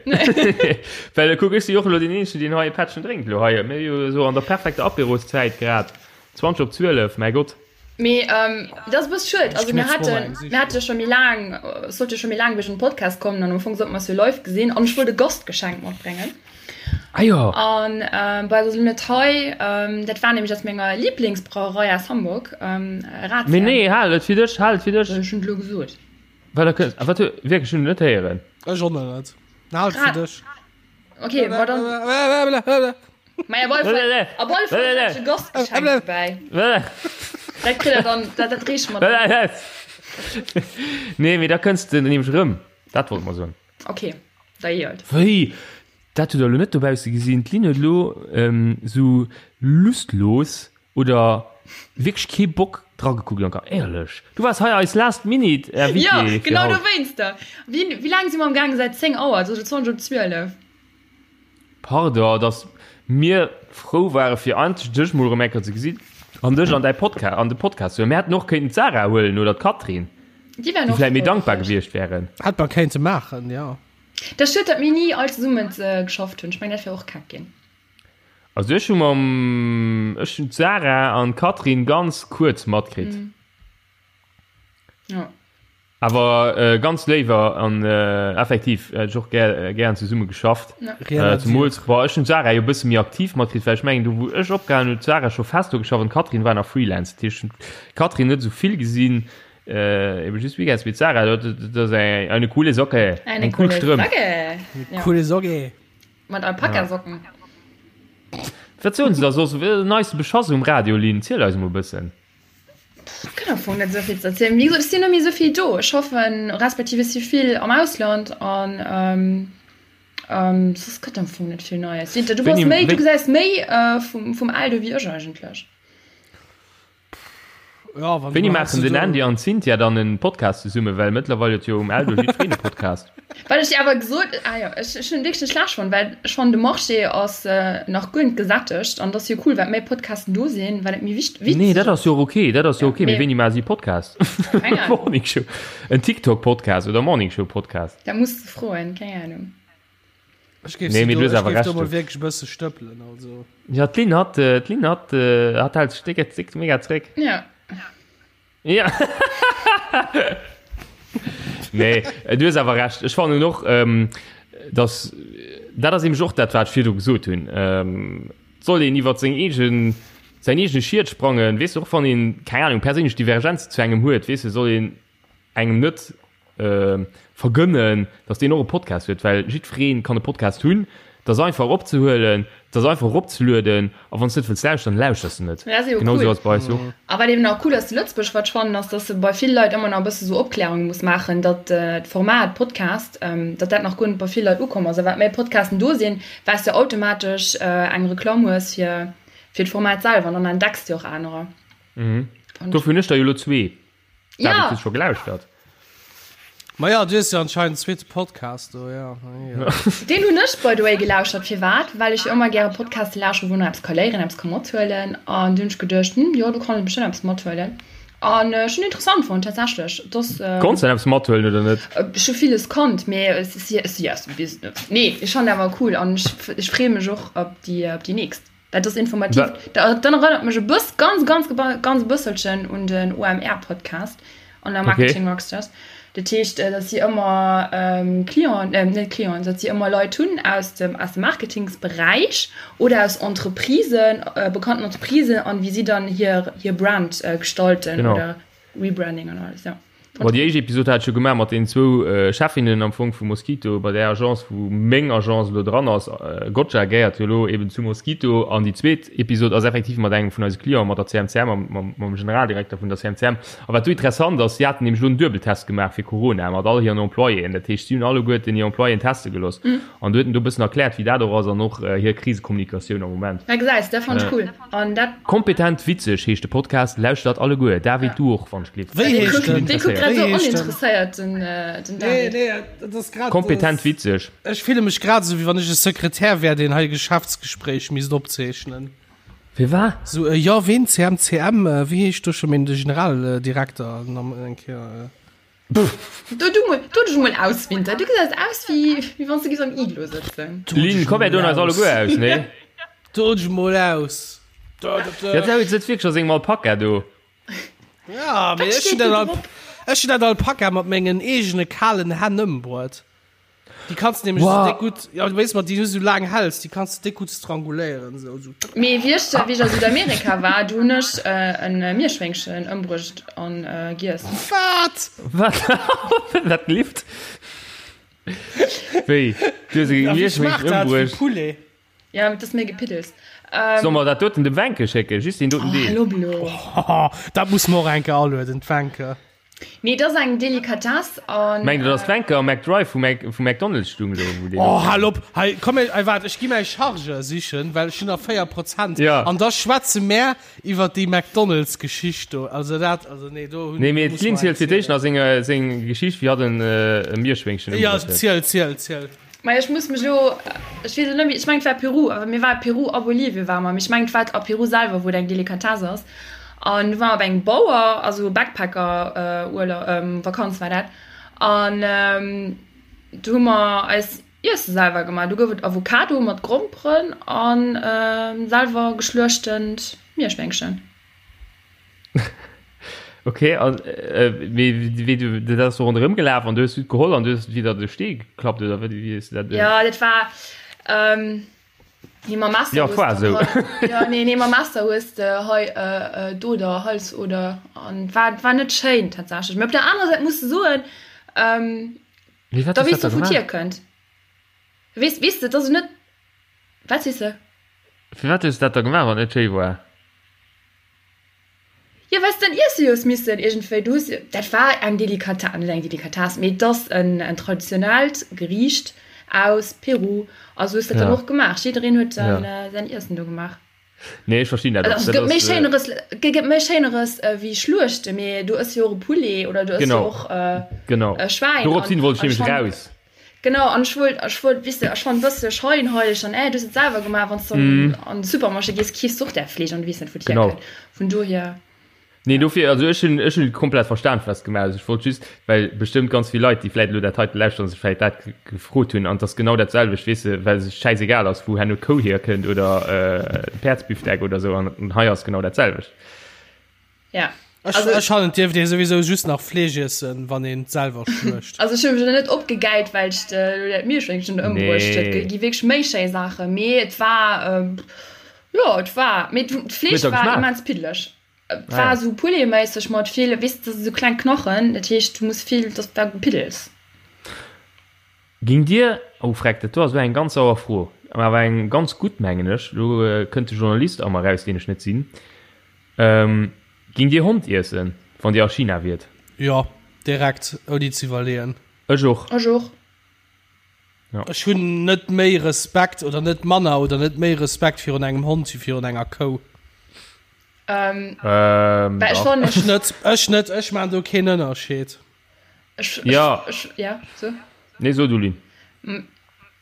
Well kuck, ech si jo och elo deen Eenzegen, deen hei e Pättchen drénkt elo hei. Mir si jo esou an der perfekter Apéroszäit grad. 20 op 12, mäi Gott. Mee dat ass e bësse schued. Also mir haten, mir hate jo scho méi laang, et sollt jo scho méi laang wéi den Podcast kommen an am Fong sollte mer eis jo live gesinn an ech wollt e Gastgeschenk matbréngen. Ah jo. An bei ass elo net hei, dat war nämlech aus menger Lieblingsbrauerei aus Hamburg, Ratsherrn. Mee nee, hal et fir dech, hal et fir dech. Ech hunn et elo gesot. Wat da kënnt, ah wat, wierklech, ech hunn et net héieren. Ech och net. Hal et fir dech. Okay, war dann. Mei, op alle Fall, op alle Fall hat ich e Gastgeschenk dobäi. Dat kritt der dann, dat, dat reeche mer dann. Nee, mee da kënns de nämlech erëm. Dat wollt mer soen. Okay, da jee halt. Wéi? Dat hutt der elo net dobausse gesinn. D'Lynn huet elo esou lustlos oder wierklech kee Bock dragekuckt, Anka. Éierlech, du waars hei eis last minute Invitée Jo, fir genau haut. dowéinster. Wéi, wéi laang si mer am gaangen? Säit 10 Auer, et ass elo 20 op 12. Pardon, dass mir frou ware fir endlech dech mol erëm eng Kéier ze gesinn an dech an däi Podca an de Podcast ze huelen. Mir hätten och kéinten d'Sarah huelen oder d'Catherine, Déi wären déi och vläit méi frou dankbar gewiescht. gewiescht wären. Hätt mer kéinte maachen, jo. Dat ass schued, datt mir ni all zesummen geschafft hunn. Ech mengen, dat wär och keck ginn. Also ech hu mam, ech hunn d'Sarah an d'Catherine ganz kuerz matkritt. Ja. Awer ganz léiwer an effektiv hätt ech och gär, gären zesumme geschafft. Ja. Zemools, bon, ech hunn d'Sarah jo e bësse méi aktiv matkritt, well ech mengen do wou ech opgehalen hunn, huet d'Sarah scho fest do geschafft an d'Catherine war nach Freelance. Dat heescht, ech hunn d'Catherine net esou vill gesinn, ebe just Weekends, mee d'Sarah, dat ass eng, eine coole Socke, Eine eng cool coole Strëmp. Socke. Ja. Coole Socke. Mat Alpakasocken. Wat soen se da soss? Den neiste Beschass um Radio, Lynn? Ziel eis emol e bëssen. Gëtt am Fong net esou vill ze erzielen. Wéi gesot, ech sinn net méi esou vill do. Ech schaffen, respektiv ech si vill am Ausland an soss gëtt am Fong net vill Neies. Winter, du bass méi, du gesäis méi vum Eldo wéi ech eigentlech. Ja, wann Wéini du maachen den Andy an d'Cynthia dann en Podcast zesummen? Well mëttlerweil huet jo um Eldo jiddwereen e Podcast. Wat ech dir awer gesot, ah jo, ech, ech hunn wierklech net schlecht fonnt, well ech fannen de Marché ass nach guer net gesättegt an et ass jo cool, wat méi Podcasten do sinn, wat et méi wicht, Nee, witzeg dat ass jo och ok, dat ass jo ok, mee mee wéini maache si Podcast? keng Ahnung. Morning Show, en TikTok Podcast oder Morning Show Podcast? Dat muss de froen, keng Ahnung. Ech géif Nee, si mee do, du hues ech awer géif do Recht, mol du. wierklech e bësse stëppelen, also. Ja, d'Lynn hat, d'Lynn hat, hat hält sech déck, déck mega zréck. Ja. Ja. Nee, du hues awer Recht. Ech fannen och, ähm, dass dat ass nämlech och dat, wat ech virdu gesot hunn. Ähm, soll een iwwer seng eegen, säin eegene Schiet sprangen, weess de, och wann een, keng Ahnung, perséinlech Divergenzen zu engem huet, weess de, soll een engem net vergënnen, dass deen och e Podcast huet, well jiddweree kann e Podcast hunn. Et ass einfach eropzehuelen, et ass einfach eropzelueden a wann s de net wëlls lauschteren, lauschters de net. Dat ass jo Genau cool. esou ass et bei eis och. A wat eben nach cool ass zu Lëtzebuerg, wat ech fannen, ass, dass se bei vill Leit ëmmer nach e bësse sou Opklärunge muss maachen, datt d'Format Podcast, datt dat nach guer net bei vill Leit ukomm ass. A wat méi Podcasten do sinn, wat s de automatesch eng Reklamm hues fir fir d'Format selwer an dann entdecks de och anerer. Dofir hunn ech der jo elo zwee. Ja. David, hues scho gelauschtert? Ma ja, du hues jo anscheinend en zweete Podcast do, ja. ja. Deen hunn ech by the way gelauschert. Firwat? Well ech jo ëmmer gäre Podcaste lauschteren, wou een eppes ka léieren, eppes ka mathuelen. An du hunn ech geduecht, hm, jo, do kann ee bestëmmt eppes mathuelen. An ech hunn interessant fonnt, tatsächlech. Et ass. Konns de eppes mathuelen oder net? Ech hu villes konnt, mee et si, et si, nee, ech fannen awer cool an ech, ech freeë mech och op déi, op déi nächst. Dat ass informativ. Dat erënnert mech e bëss, ganz, ganz, ganz e bësselchen un den OMR-Podcast an der Marketing okay. Rockstars. Dat heescht, äh, dass si ëmmer ähm, Client, äh, net Clienten, dass si ëmmer Leit hunn aus dem, aus dem Marketingsberäich oder aus Entreprisen, äh, bekannten Entreprisen an wie si dann hir, hir Brand äh, gestalten genau. oder Rebranding an alles, ja. Bon, déi éischt Episod hat ech jo gemaach mat deenen zwou Chefinnen am Fong vu Mosquito, bei där Agence, wou meng Agence elo dran ass. Gotcha gehéiert jo elo eben zu Mosquito. An déi zweet Episod ass effektiv mat engem vun eise Clienten, mat der CMCM, mam, mam Generaldirekter vun der CMCM. A wat do interessant ass, si haten nämlech elo en Duebeltest gemaach fir Corona mat all hiren Employéen. Dat heescht, si hunn alleguerten hir Employéen teste gelooss. An do huet en do e bëssen erkläert, wéi dat och ass an och hir Krisekommunikatioun am Moment. Ja, gesäis, dat fannt ech cool. An dat. Kompetent witzeg heescht de Podcast, lauschtert alleguer. David, du och, wann ech gleef. Wéi heescht den? Dee kuckt grad esou oninteresséiert, den David. Nee, nee, dat ass grad. Kompetent witzeg. Ech fille mech grad esou, wéi wann ech e Sekretär wär, deen hei e Geschäftsgespréich misst opzeechnen. Firwat? Sou, jo, ween? CMCM, wéi heescht do scho méi de Generaldirekter? Eng Kéier. Do du mol, do dech mol aus, Winter. Du gesäis aus wéi, wéi wann s du giffs am Iglo sëtzen. Lynn, komm mir doen eis alleguer aus, nee? Do dech mol aus. Ja, David sëtzt wierklech a sengem Alpaka do. Ja, mee Wat ech hunn steet do dat Al drop? ech hunn dat Alpaka mat mengen eegene kalen Hänn ëmbruet. Déi kanns du nämlech wow. so déck gutt, ja, du weess mat déi du so laang häls, déi kanns du déck gutt stranguléieren. So, so. Mee wéi ech, wéi ech a Südamerika war, du hunn ech äh, en äh, Mierschwéngchen ëmbruecht an äh, giess. Wat? Wat? Dat lift? Wéi? Du hues e Mierschwéngchen ëmbruecht? Poulet. Ja, dat ass méi gepiddels. Solle mer dat doten dem Wencke schécken? Just deen doten Oh, Deel. hallo blo. Oh, dat muss mer och eng Kéier alueden, d'Wencke. Nee, dat ass eng Delikatess an. Mengt der, dass d'Wencke am McDrive vu Mac, vu McDonald's stung do, wou deen Oh, hal op! Hei, komm, ey, waart, ech gi mäi Chargeur sichen, well ech hunn nach 4 Prozent. Ja. An da schwätze mär iwwer déi McDonald's-Geschicht do. Also dat, also nee, do hunn. Nee, mee do muss d'Lynn mer zielt eng fir d'éischt nach seng, seng Geschicht, wéi hatt en, e Mierschwéngchen Ja, ëmbruecht huet. ziel, ziel, ziel. Majo ech muss mech elo, ech weess elo net méi, ech mengen et war Peru, awer mir ware Peru a Bolivien ware mer, mee ech mengen et war a Peru selwer wou et eng Delikatess ass an du ware mer bei engem Bauer, also Backpacker Urlaub, Vakanz war dat an do hu mer eis Iesse selwer gemaach, do gouf et Avocado mat Gromperen an selwer geschluechtent Mierschwéngchen. Ok, an wéi wéi du dat ass do ronderëm gelaf an du hues du et geholl an du hues et widder de Stee geklappt oder wéi wéi hues du dat? Ja, dat war ähm, nee, mam Messer Ja, hues war de esou. hei, ja, nee, nee, mam Messer hues de hei äh, äh, d'Oder, Halsoder an war war net schéin tatsächlech. Mee op der anerer Säit muss de soen, ähm, Mee wat da hues weess dat de da wou gemaach? d'hier kënnt. Weess weess de, et ass net, wat sees de? Firwat hues du dat da gemaach wann et net schéi war? Jo, well s de en iesse hues missen iergendwéi. Du hues, dat war eng Delikatess, net eng Delikatess, mee et ass en en traditionellt Geriicht aus Peru. A sou hues de dat dann Ja. och gemaach. Jiddereen huet dann Ja. säin Iessen do gemaach. Nee, ech verstinn dat och. Also, et Dat gëtt méi ass, Schéineres, et gëtt méi Schéineres wéi Schluechte, mee du ëss jo och e Poulet oder du ëss jo Genau. och e Genau. Schwäin. Dorops An hin wollt ech an ech nämlech fannen, raus. genau, an ech wollt, ech wollt, weess de, ech fannen e bësse scheinheileg an, äh, du hues et selwer gemaach, wann s du an an de Supermarché gees, keefs du och däi Fleesch an du weess net, wou et Genau. hierkënnt. Vun dohier. Nee, dofir, also ech hunn, ech hunn komplett verstan, wat s de gemaach hues. Ech wollt just, well bestëmmt ganz vill Leit, déi vläit elo dat heite lauschteren, sech vläit dat gefrot hunn. An et ass genau dat selwecht, weess de, well sech schäisegal ass, wou herno d'Kou hierkënnt oder de Päerdsbifdeck oder esou. An hei ass genau dat selwecht. Ja. Ech, also, ech fannen, dierft ee souwisou just nach Fleesch iessen, wann een et selwer schluecht. Also ech hu mech net opgegäilt, well ech elo dat Mierschwéngchen ëmbruecht huet. Nee. Gi wierklech méi schéi Saachen, mee et war, ähm, jo, et war, mee d'Fleesch war immens piddeleg. Et war ah, ja. esou Poulet-méisseg mat vill, weess de, esou kleng Knochen, dat heescht, du muss vill, dat war Gepiddels. Ging Dir, oh freck, dat do ass elo eng ganz sauer Fro, mä awer eng ganz gutt, mengen ech, elo kënnt de Journalist a mer eraus, deen ech net sinn, Ging Dir Hond iessen, wann Dir a China wiert? Jo, direkt, ouni ze iwwerleeën. Ech och. Ech och. Ja. Ech hunn net méi Respekt oder net manner oder net méi Respekt virun engem Hond wéi virun enger Kou. Ähm, ähm, ech ech net, ech net, ech maan do keen Ënnerscheed. Ech, ja. Ech, ech, ja, so. Nee, so du, Lynn.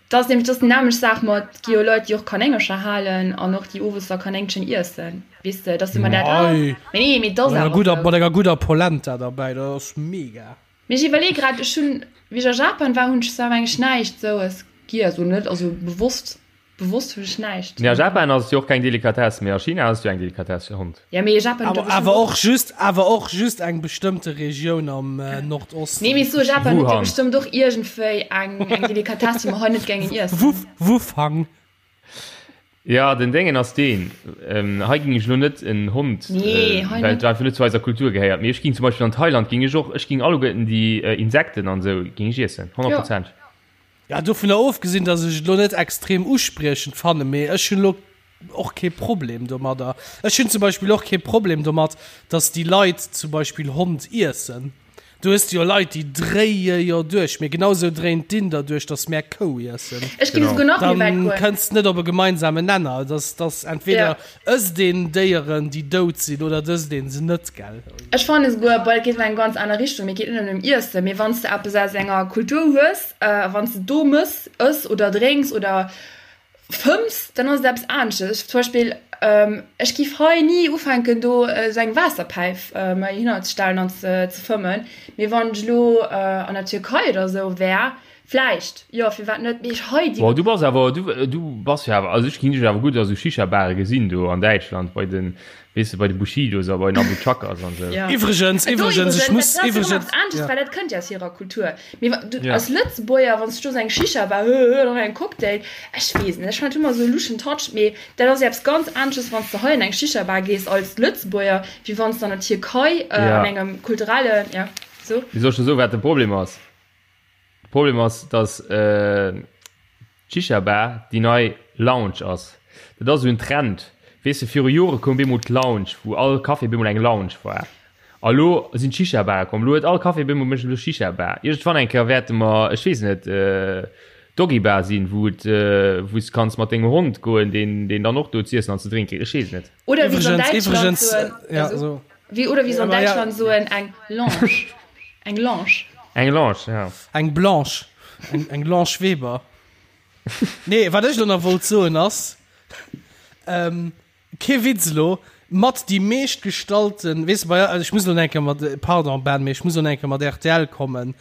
Dat ass nämlech, dat ass déi nämmlecht Saach mat, et gi jo Leit, déi och Kanéngercher halen an och déi owes da Kanéngchen iessen, weess de, dat ass ëmmer dat, ah, Mei, mee nee, mee dat ass mat enger awer gudder, esou. mat enger gudder Polenta derbäi, dat ass mega. Mee ech iwwerleeë grad, ech hunn, wéi ech a Japan war, hunn ech zwar mengen ech näischt esoues giess, oder net, also bewosst. Bewosst hunn ech näischt. Nee, a Japan ass et jo och keng Delikatess, mee a China ass et jo eng Delikatess, Hond. Ja, mee Japan huet jo bestimmt Awer och just, awer och just eng bestëmmte Regioun am Nordosten. Nee, mee ech soe Japan huet jo Wuhan. bestëmmt och iergendwéi eng, eng Delikatess, déi mer hei net géingen iessen. Wu, Wufang. Ja, den Déngen ass deen, hei géing ech elo net en Hond, Nee, hei well net. et einfach net zu eiser Kultur gehéiert, mee ech géing zum Beispill an Thailand géing ech och, ech géing alleguerten déi Insekten an esou géing ech iessen, 100 Jo. Prozent. Ja, dovunner ofgesinn, dass ech et elo net extrem uspriechend fannen, mee ech hunn elo och kee Problem domadder. Ech hunn zum Beispill och kee Problem domat, dass déi Leit zum Beispill Hond iessen. Du hues jo Leit, déi dréie jo duerch, mee genau esou dréien d'Inder duerch, dass mär Kou iessen. Ech géif esouguer nach méi wäit Dann goen. kënns net op e gemeinsamen Nenner. Dass, dass entweder ësst een Déieren, déi dout sinn, oder et ësst een se net, gell? Ech fannen esouguer, bon, dat geet an eng ganz aner Richtung, mee et geet net ëm Iessen, mee wann s de eppes aus enger Kultur hues, A wann s de do mëss, ëss oder drénks oder fëmms, dann ass et eppes aneschtes. Ech zum Beispill, ech giff hei ni ufänken do esou eng Waasserpäif mer hinner ze stellen an ze fëmmen. Mee wann ech elo an der Türkei oder esou wär, vläicht, jo, firwat net. Mee ech hei déi. Boah, du bass awer, du, du bass jo awer, also ech ginn dech awer gutt a sou Shisha-Bare gesinn do an Däitschland bei den, Weess de, bei de Bushidos a bei den Abu Chakers an esou. Ja. Iwwregens, Do iwwregens, ech iwwregens, muss, dat ass jo iwwregens, eppes anesches, ja. well dat kënnt jo aus hirer Kultur. Mee wa du Ja. als Lëtzebuerger, wann s du do esou eng Shisha-Bar, hö, hö, dann eng Cocktail, ech weess net, ech fannen dat ëmmer esou e luschen Touch, mee dat ass jo eppes ganz anesches, wann s de hei an eng Shisha-Bar gees als Lëtzebuerger, wéi wann s de an der Tierkei Ja. an engem kulturellen, ja, so. Mee soll ech der soen, wat de Problem ass? De Problem ass, dass d'Shisha-Bar déi nei Lounge ass. Dat ass esou en Trend. Weess de, viru Jore koum bemol d'Lounge, wou all Café bemol eng Lounge war. A lo sinn d'Shisha-Bare komm. Lo huet all Café bemol mécht elo Shisha-Bar. Iergendwann eng Kéier wäerte mer, ech weess net, Doggy-Bar sinn, wou et, wou s de kanns mat dengem Hond goen, deen, deen dann och do z'iessen an ze drénke kritt. Ech weess et net. Oder wéi se an Iwwregens, Däitschland iwwregens, soen, ja, also, so. wéi, oder wéi se an Ja, ma ja. Däitschland soen, eng Lounge. Eng Lounge. Eng Lounge, ja. Eng Blanche. Eng, eng Blanche Weber. Nee, wat ech elo nach wollt soen ass, ähm, kee Witz elo, mat déi meescht gestallten, weess de, bei, ech muss elo nach eng Kéier mat, pardon Ben, mee ech muss elo nach eng Kéier mat rtl kommen.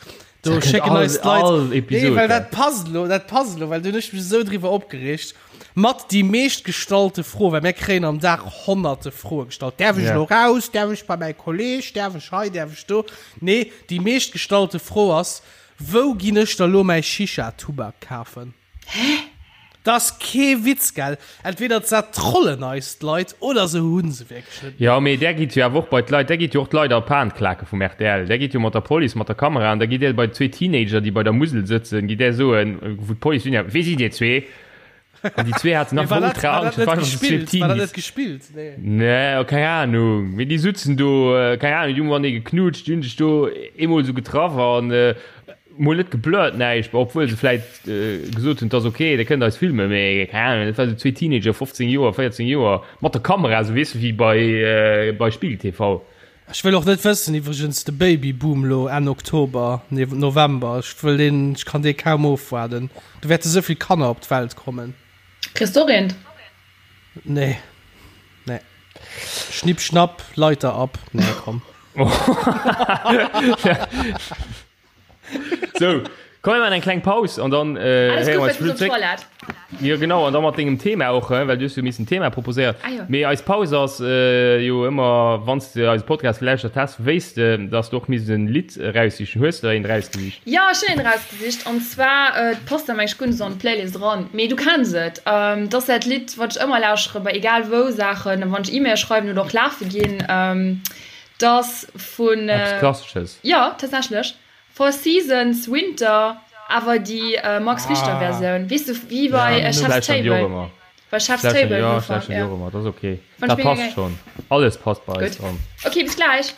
Do Dat kënnt schécken all, eis d'Leit, all nee, Episod, well ja. dat passt elo, dat passt elo, well do hunn ech mech esou driwwer opgereegt. Mat déi meescht gestallte Fro, well mir kréien am Dag honnerte Froe gestallt. Däerf ech Ja. elo raus? Däerf ech bei mäi Kolleg? Däerf ech hei? Däerf ech do? Nee, déi meescht gestallte Fro ass, Wou ginn ech da lo mäi Shisha-Tubak kafen? Hä? Dat ass kee Witz, gell? Entweder dat trollen eis d'Leit oder se hu se wierklech net méi. Jo, mee där gitt jo awer och bei d'Leit, där gitt jo och d'Leit a Pan klake vum rtl. Där gitt jo mat der Police, mat der Kamera an da gitt där bei zwee Teenager, déi bei der Musel sëtzen, gitt där soen, wou d'Police dunn, Wie sidd dir zwee? An déi zwee haten Mee nach war dat, ultra war dat Angscht, net dat waren einfach zwee gespillt? War dat Teenies. net gespillt? Nee. Nee, keng Ahnung. Mee déi sutzen do, keng Ahnung, déi hu matenee geknutscht, déi hunn sech do eemol esou getraff an mol net geblurrt, näischt, obwuel se vläit gesot hunn, et ass ok, dir kënnt eis filmen, mee keng Ahnung, dat war sou zwee Teenager, 15 Joer, 14 Joer, mat der Kamera, sou weess de, wéi bei, bei Spiegel TV. Ech wëll och net wëssen, iwwregens, de Babyboom lo Enn Oktober, nee November, ech wëll deen, ech kann dee kaum ofwaarden, do wäerte sou vill Kanner op d'Welt kommen. Kriss de och eent? Nee, nee. Schnipp schnapp, Leiter ab, nee komm. Sou, komm mir maachen eng kleng Paus an dann Alles héiere gutt, mer eis well du zréck. op d'Toilette. Jo genau, an da mat dengem Thema och, well du hues jo missen Thema proposéiert. Ah jo. Mee eis Paus ass jo ëmmer, wann s de eise Podcast gelauschtert häss, wéisst de, dass de och misst en Lidd eraussichen. Hues de der eent erausgesicht? Jo, ech hunn eent erausgesicht an zwar, et passt awer mengen ech guer net esou an d'Playlist eran, mee du kenns et, et ass dat Lidd wat ech ëmmer lauschtere bei egal wou Saachen, wann ech E-Mail schreiwen oder och lafe ginn, 't ass vun. Eppes Klassesches. Jo, tatsächlech. Four Seasons Winter, awer déi Max Richter Versioun, weess de, wéi bei Chef's Table, bei Chef's Table jo, ech lauschteren déi och ëmmer, dat ass ok, dat passt schonn, alles passt bei eis dran. Ok, bis gläich.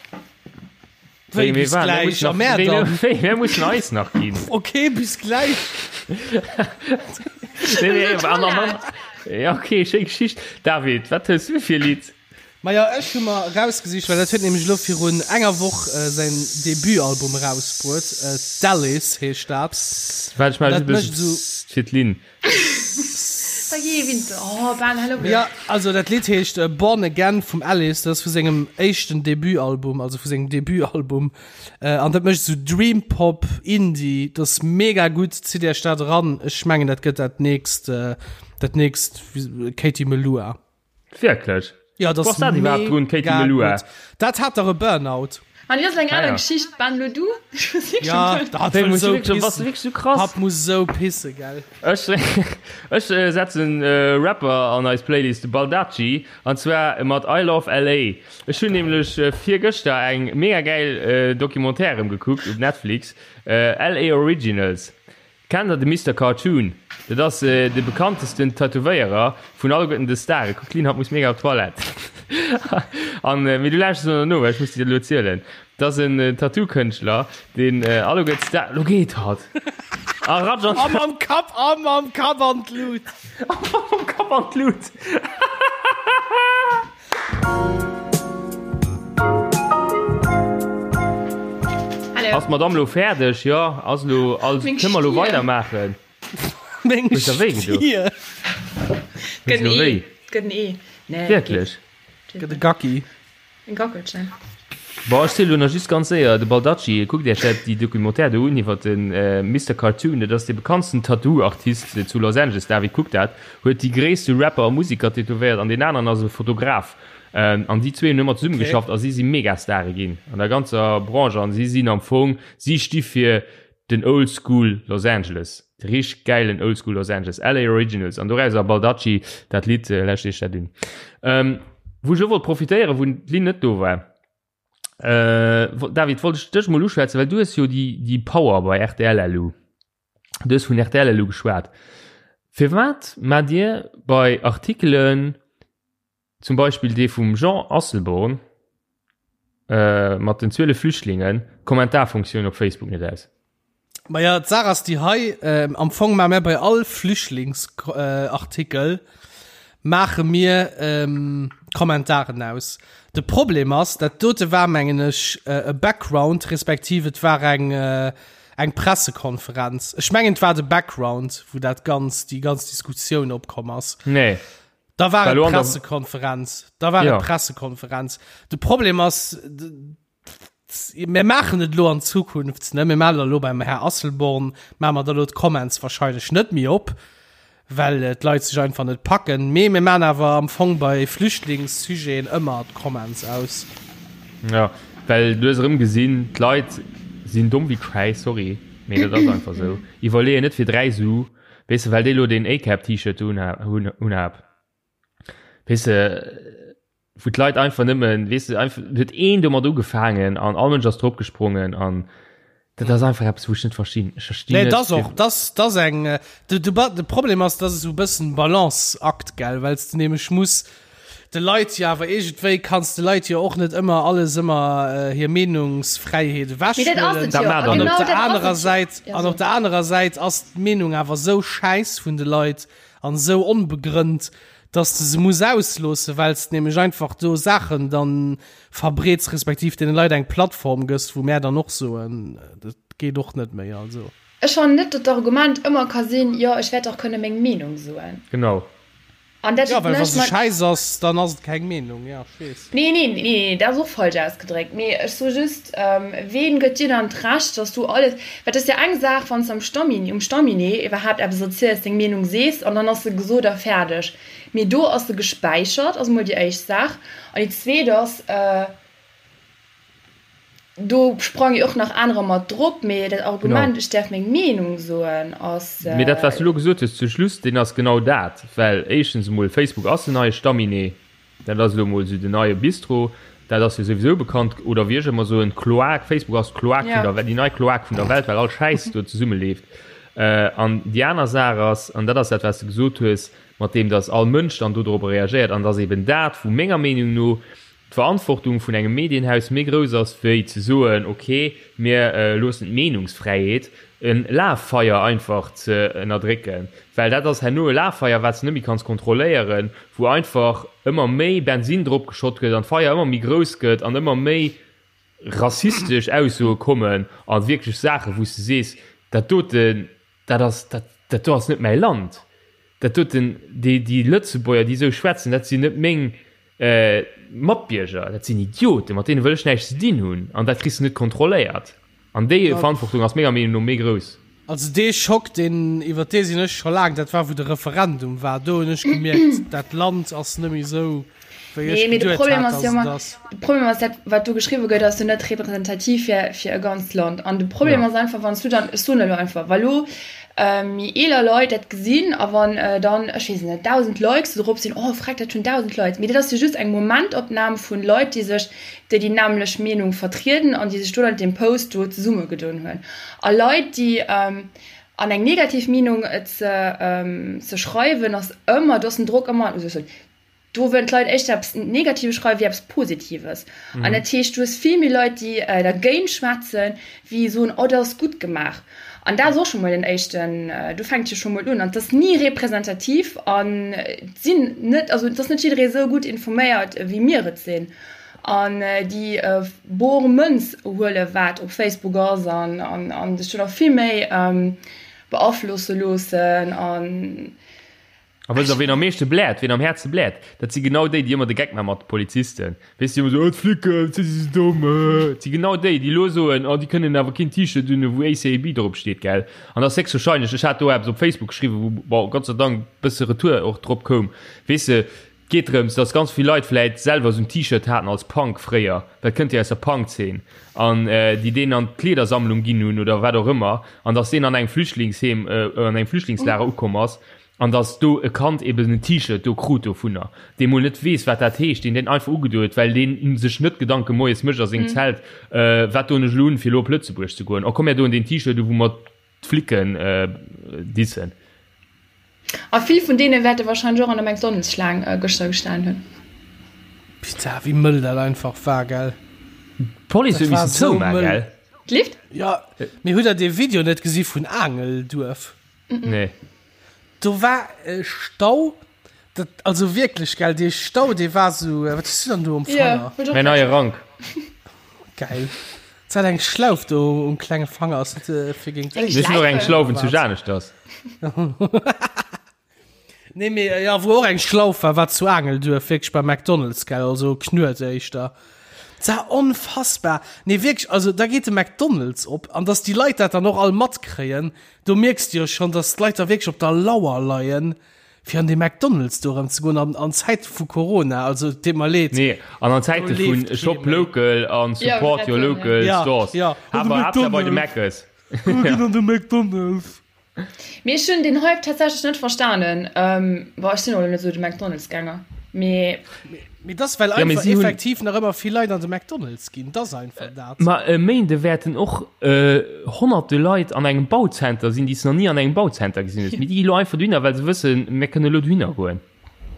Wéi bis gläich? A mär dann? Wéi, mir mussen eis nach ginn. Ok, bis gläich. Ja, ok, schéi Geschicht. David, wat hues du fir e Lidd? Majo, ech hu mer erausgesicht, well dat huet nämlech elo virun enger Woch säin Debutalbum erausbruet, Dallis heescht dat. Waart, ech maache just e bësse Psst fir d'Lynn. Jo, also dat Lidd heescht Born Again vum Alice, dat ass vu sengem éischten Debutalbum, also vu sengem Debutalbum, an dat mécht esou Dream Pop, Indie, dat ass mega gutt, zitt iech dat eran, ech mengen dat gëtt dat nächst, dat nächst Katie Melua. Wierklech? Ja, dat ass dat iwwerhaapt drun, Katie Melua? Dat hat dach e Burnout. An dat ass eng aner Geschicht. Ben, lo du? Ja, dat wëll esou pissen. Wierklech esou krass? Hatt muss esou pisse, gell? Ech, ech setzen e Rapper an eis Playlist, de Baldacci, an zwar mat I Love LA. Ech hunn nämlech virgëschter eng mega gäil Documentaire erëm gekuckt op Netflix, LA Originals. Kennt der de Mister Cartoon? Dat ass de bekanntesten Tätowéierer vun alleguerten de Staren. Kuck Lynn, hatt muss mega op d'Toilette. An mee du lauschters elo no, well ech muss dir dat elo zielen. Dat ass en Tattoo-Kënschtler, deen alleguer d'Star. Lo geet hatt! A ratsch an. A mam Kapp, a mam Kapp an d'Lut! A mam Kapp an d'Lut! Ass d'Madame lo fäerdeg? Jo, ass lo all. Kënne mer lo weidermaachen? Meng Huet der wéi gedo? Stier. Huet se lo wéi? Gëtt en Ee. Nee, Wierklech? Gëtt e Gacki. En Gackelchen. Bon, ech zielen lo nach just ganz séier, de Baldacci, kuckt iech dat déi Documentaire do un iwwer de Mister Cartoon, dat ass dee bekanntsten Tattoo-Artist zu Los Angeles, David, kuck dat, huet déi gréisste Rapper a Musiker tätowéiert an deen aneren ass e Fotograf an déi zwee hunn ëmmer zesumme geschafft a si si Megastare ginn an der ganzer Branche an si sinn am Fong, si sti fir den Old School Los Angeles, de richteg gäilen Old School Los Angeles, LA Originals an dorauser Baldacci, dat Lidd, lauschtert iech dat un. Wou ech elo wollt profitéieren, wou d'Lynn net do war, David, wollt ech dech mol uschwätzen, well du hues jo déi, déi Power bei rtl elo. Du hues vun rtl elo geschwat. Firwat maacht Dir bei Artikelen, Zum Beispill dee vum Jean Asselborn mat den 12 Flüchtlingen, d'Kommentarfunktioun op Facebook net aus. Maja, d'Saach ass déi hei, Am Fong maache mir bei all Flüchtlingsartikel maache mir d'Kommentaren aus. De Problem ass, dat dote war, mengen ech, e Background, respektiv et war eng, eng Pressekonferenz. Ech mengen, et war de Background, wou dat Ganzt, déi ganz Diskussioun opkomm ass. Nee. Da war et Pressekonferenz. Da war ja. Pressekonferenz. De Problem ass mir maachen et lo an Zukunft ne mir maachen lo beim Herr Asselborn maache mer da lo d'Comments wahrscheinlech net méi op, well äh, d'Leit sech einfach net packen. Mee mir maachen awer am Fong bei Flüchtlingssujeten ëmmer d'Comments aus. Ja, well du hues erëm gesinn, d'Leit sinn domm wéi Schäiss, sorry, mee dat ass einfach sou. Iwwerleeën net fir 3 Su. Weess de, well déi lo deen A-Cap-T-Shirt do unhab, unhab. Weess de, wou d'Leit einfach nëmmen, weess de, einfach, huet een domat ugefaangen an all Mënsch ass drop gesprongen an dat ass einfach eppes, wou ech net verstinn. Ech verstinn Nee, net, dat ass och, dat ass, dat ass eng, de, de, de Problem ass, dat ass esou e bëssen Balanceakt, gell, well s de nämlech muss de Leit jo awer iergendwéi, kanns de Leit jo och net ëmmer alles ëmmer hir Meenungsfräiheet Mee dat ass ewechhuelen. et jo. Dat maacht A der net. An op genau der dat ass anerer et jo. Säit, Ja, an so. op der anerer Säit ass d'Meenung awer esou schäiss vun de Leit an esou onbegrënnt, dass de se muss ausloossen, well s de nämlech einfach do Saachen dann verbreets, respektiv deene Leit eng Plattform gëss, wou mär dann och soen, dat geet och net méi. Also. Ech fannen net, datt d'Argument ëmmer ka sinn, jo, ech wäert dach kënne meng Meenung soen. Genau. An dat Ja, well wa mécht se mer. schäiss ass, dann ass et keng Meenung, ja, ech weess. Nee, nee, nee, nee, dat ass och falsch ausgedréckt. Mee ech soe just, ween gëtt dir dann d'Recht, dass du alles, well et ass jo eng Saach, wann s de am Stammi, um Stamminet iwwerhaapt eppes erziels, deng Meenung sees an dann ass se gesot a fäerdeg. Mee do ass se gespäichert, ass emol déi éischt Saach. An déi zweet ass, Do sprange jo och nach anerer mat drop, mee dat Argument, ech däerf meng Meenung soen, ass. Mee dat, wat s du elo gesot hues zu Schluss, deen ass genau dat. Well éischtens emol, Facebook ass den neie Stamminet, dat ass elo emol esou den neie Bistro, dat ass jo souwisou bekannt, oder wéi ech ëmmer soen, d'Kloak, Facebook ass d'Kloak vun der Welt, déi nei Kloak vun der Welt, well all Schäiss do zesummeleeft. An déi aner Saach ass, an dat ass dat, wat s de gesot hues, mat deem, datt all Mënsch dann dodrop reagéiert, an datt eben dat, wou menger Meenung no d'Verantwortung vun engem Medienhaus méi grouss ass wéi ze soen, ok, mir loossen d'Meenungsfräiheet, e Laffeier einfach ze ënnerdrécken, well dat ass herno e Laffeier, wat s de net méi kanns kontrolléieren, wou einfach ëmmer méi Bensinn drop geschott gëtt an d'Feier ëmmer méi grouss gëtt an ëmmer méi rassistesch Aussoe kommen a wierklech Saachen, wou s de sees, dat doten, dat ass, dat, dat do ass net mäi Land, dat doten, déi, déi Lëtzebuerger, déi esou schwätzen, dat sinn net meng Matbierger, dat sinn Idioten, mat deene wëll ech näischt ze dinn hunn an dat kriss de net kontrolléiert. An déi Verantwortung ass menger Meenung no méi grouss. Also dee Schock, deen, iwwer dee sinn ech scho laang, dat war wou de Referendum war, do hunn ech gemierkt, dat Land ass net méi esou wéi ech Nee, mee de geduet Problem hat, ass dass jo et ëmmer, ass. de Problem ass dat, wat do geschriwwe gëtt, ass jo net representativ fir, fir e ganzt Land. An de Problem Ja. ass einfach, wann s du dann, ech soen elo einfach, wa lo méi eeler Leit dat gesinn a wann dann, ech weess et net, 1.000 Likes do drop sinn, oh freck, dat hunn 1.000 Leit. Mee dat ass jo just eng Momentopnam vun Leit, déi sech, déi déi nämmlecht Meenung vertrieden an déi sech do dann deem Post do zesummegedoen hunn. A Leit, déi an eng negativ Meenung ze ze schreiwen, ass ëmmer, do ass den Drock ëmmer, Do wëllen d'Leit éischter eppes Negatives schreiwen, wéi eppes Positives. An dat heescht, du hues vill méi Leit, déi dergéint schwätzen, wéi soen, oh, dat ass gutt gemaach. An dat ass och scho mol den éischten, do fänkt jo scho mol un. An et ass ni representativ an et sinn net, also et ass net jidderee esou gutt informéiert, wéi mir et sinn. An déi bor Mënz huele wat op Facebook ass an sech do nach vill méi beaflosse loossen. An. A wësst der, ween am meeschte bläert, ween am häertste bläert? Dat si genau déi, déi ëmmer de Geck maache mat de Polizisten. Weess de, déi ëmmer soen, oh, d'Flicken, wat si se domm, äh. Et si genau déi, déi elo soen, oh, déi kënnen awer keen T-Shirt unhunn, wou ACAB drop steet, gell? An dat ass héchstwahrscheinlech, ech hat do eppes op Facebook geschriwwen, wou, bon, Gott sei Dank e bësse Retour och drop koum, weess de, et geet drëms, dass ganz vill Leit vläit selwer esou en T-Shirt haten als Punk fréier, dat kënnt jo aus der Punk-Zeen, an déi deen an d'Kleedersammlung ginn hunn oder wat och ëmmer, an dass deen an engem Flüchtlingsheem, an engem Flüchtlingslager ukomm ass. An dass do e Kand eben en T-Shirt do krut dovunner, dee mol net weess, wat dat heescht, deen deen einfach ugedo huet, well deen sech net Gedanke moies mécht a sengem Zelt, Wat doen ech elo un, fir elo op Lëtzebuerg ze goen? Oh komm, mär doen deen T-Shirt u wou mer d'Flicken dissen. A vill vun deene wäerte wahrscheinlech och an der McDonald's-Schlaang gëschter gestan hunn. Putain, wéi mëll dat einfach war, gell? D'Police huet Dat war missen sou zoumaen, mëll. gell? D'Lift? Jo, mee hutt der dee Video net gesi vun Aangelduerf? Nee. Do war e Stau, dat, also wierklech, gell, dee Stau, dee war sou, wat hues du dann do um Fanger? Ja, Mäin neie Rank. Geil. Se hat eng Schlauf do um klenge Fanger, ass dat äh, fir géint Eng Mir sinn och eng Schlaufen zu Janeschters. Nee, mee äh, ja, wou och eng Schlauf war, war zu Aangelduerf, wierklech bei McDonald's, gell, also Knuet éischter. Dat war onfassbar. Nee, wierklech, also da geet de McDonald's op, an dass déi Leit dat dann och all matkréien, Do mierks de jo schonn, dass d'Leit da wierklech op der Lauer leien, fir an dee McDonald's do erëm ze goen an an Zäite vu Corona. Also, et deet mer leed. Nee, an an Do Zäite vun leeft kee Shop méi. local an Ja, support your wollt grad soen, ja. local Ja, stores. ja. An de Awer Haaptsaach bei de McDonald's. Meckes. Mir ginn an de McDonald's. Mee ech hunn den Hype tatsächlech net verstanen. Bon, ech sinn och elo net esou de McDonald's-Gänger, mee. Mee dass well Ja, mee einfach si hunn. effektiv nach ëmmer vill Leit an de McDonald's ginn, dass einfach dat. Ma e Méinde wäerten och honnerte Leit an engem Bauzenter sinn, déi s de nach ni an engem Bauzenter gesinn hues, mee déi gi lo einfach dohinner, well se wëssen, mir kënne lo dohinner goen.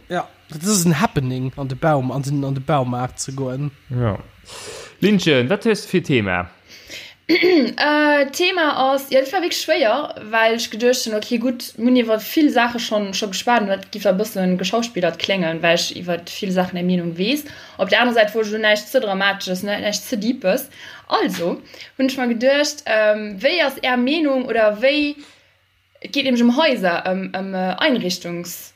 Ja, dat ass en Happening, an de Baum, an den, an de Baumaart ze goen. Ja. Linchen, wat hues de fir Thema? D'Thema ass, jo dat war wierklech schwéier, well ech geduecht hunn, ok gutt, mir hunn iwwer vill Saache schonn scho geschwat an dat giff e bëssen geschauspillert kléngen, well ech iwwer vill Saachen eng Meenung weess. Op der anerer Säit wollt ech elo näischt ze Dramatesches, näischt ze Deepes. Also hunn ech mer geduecht, wéi ass är Meenung oder wéi, et geet nämlech ëm Haiser, ëm Einrichtungs.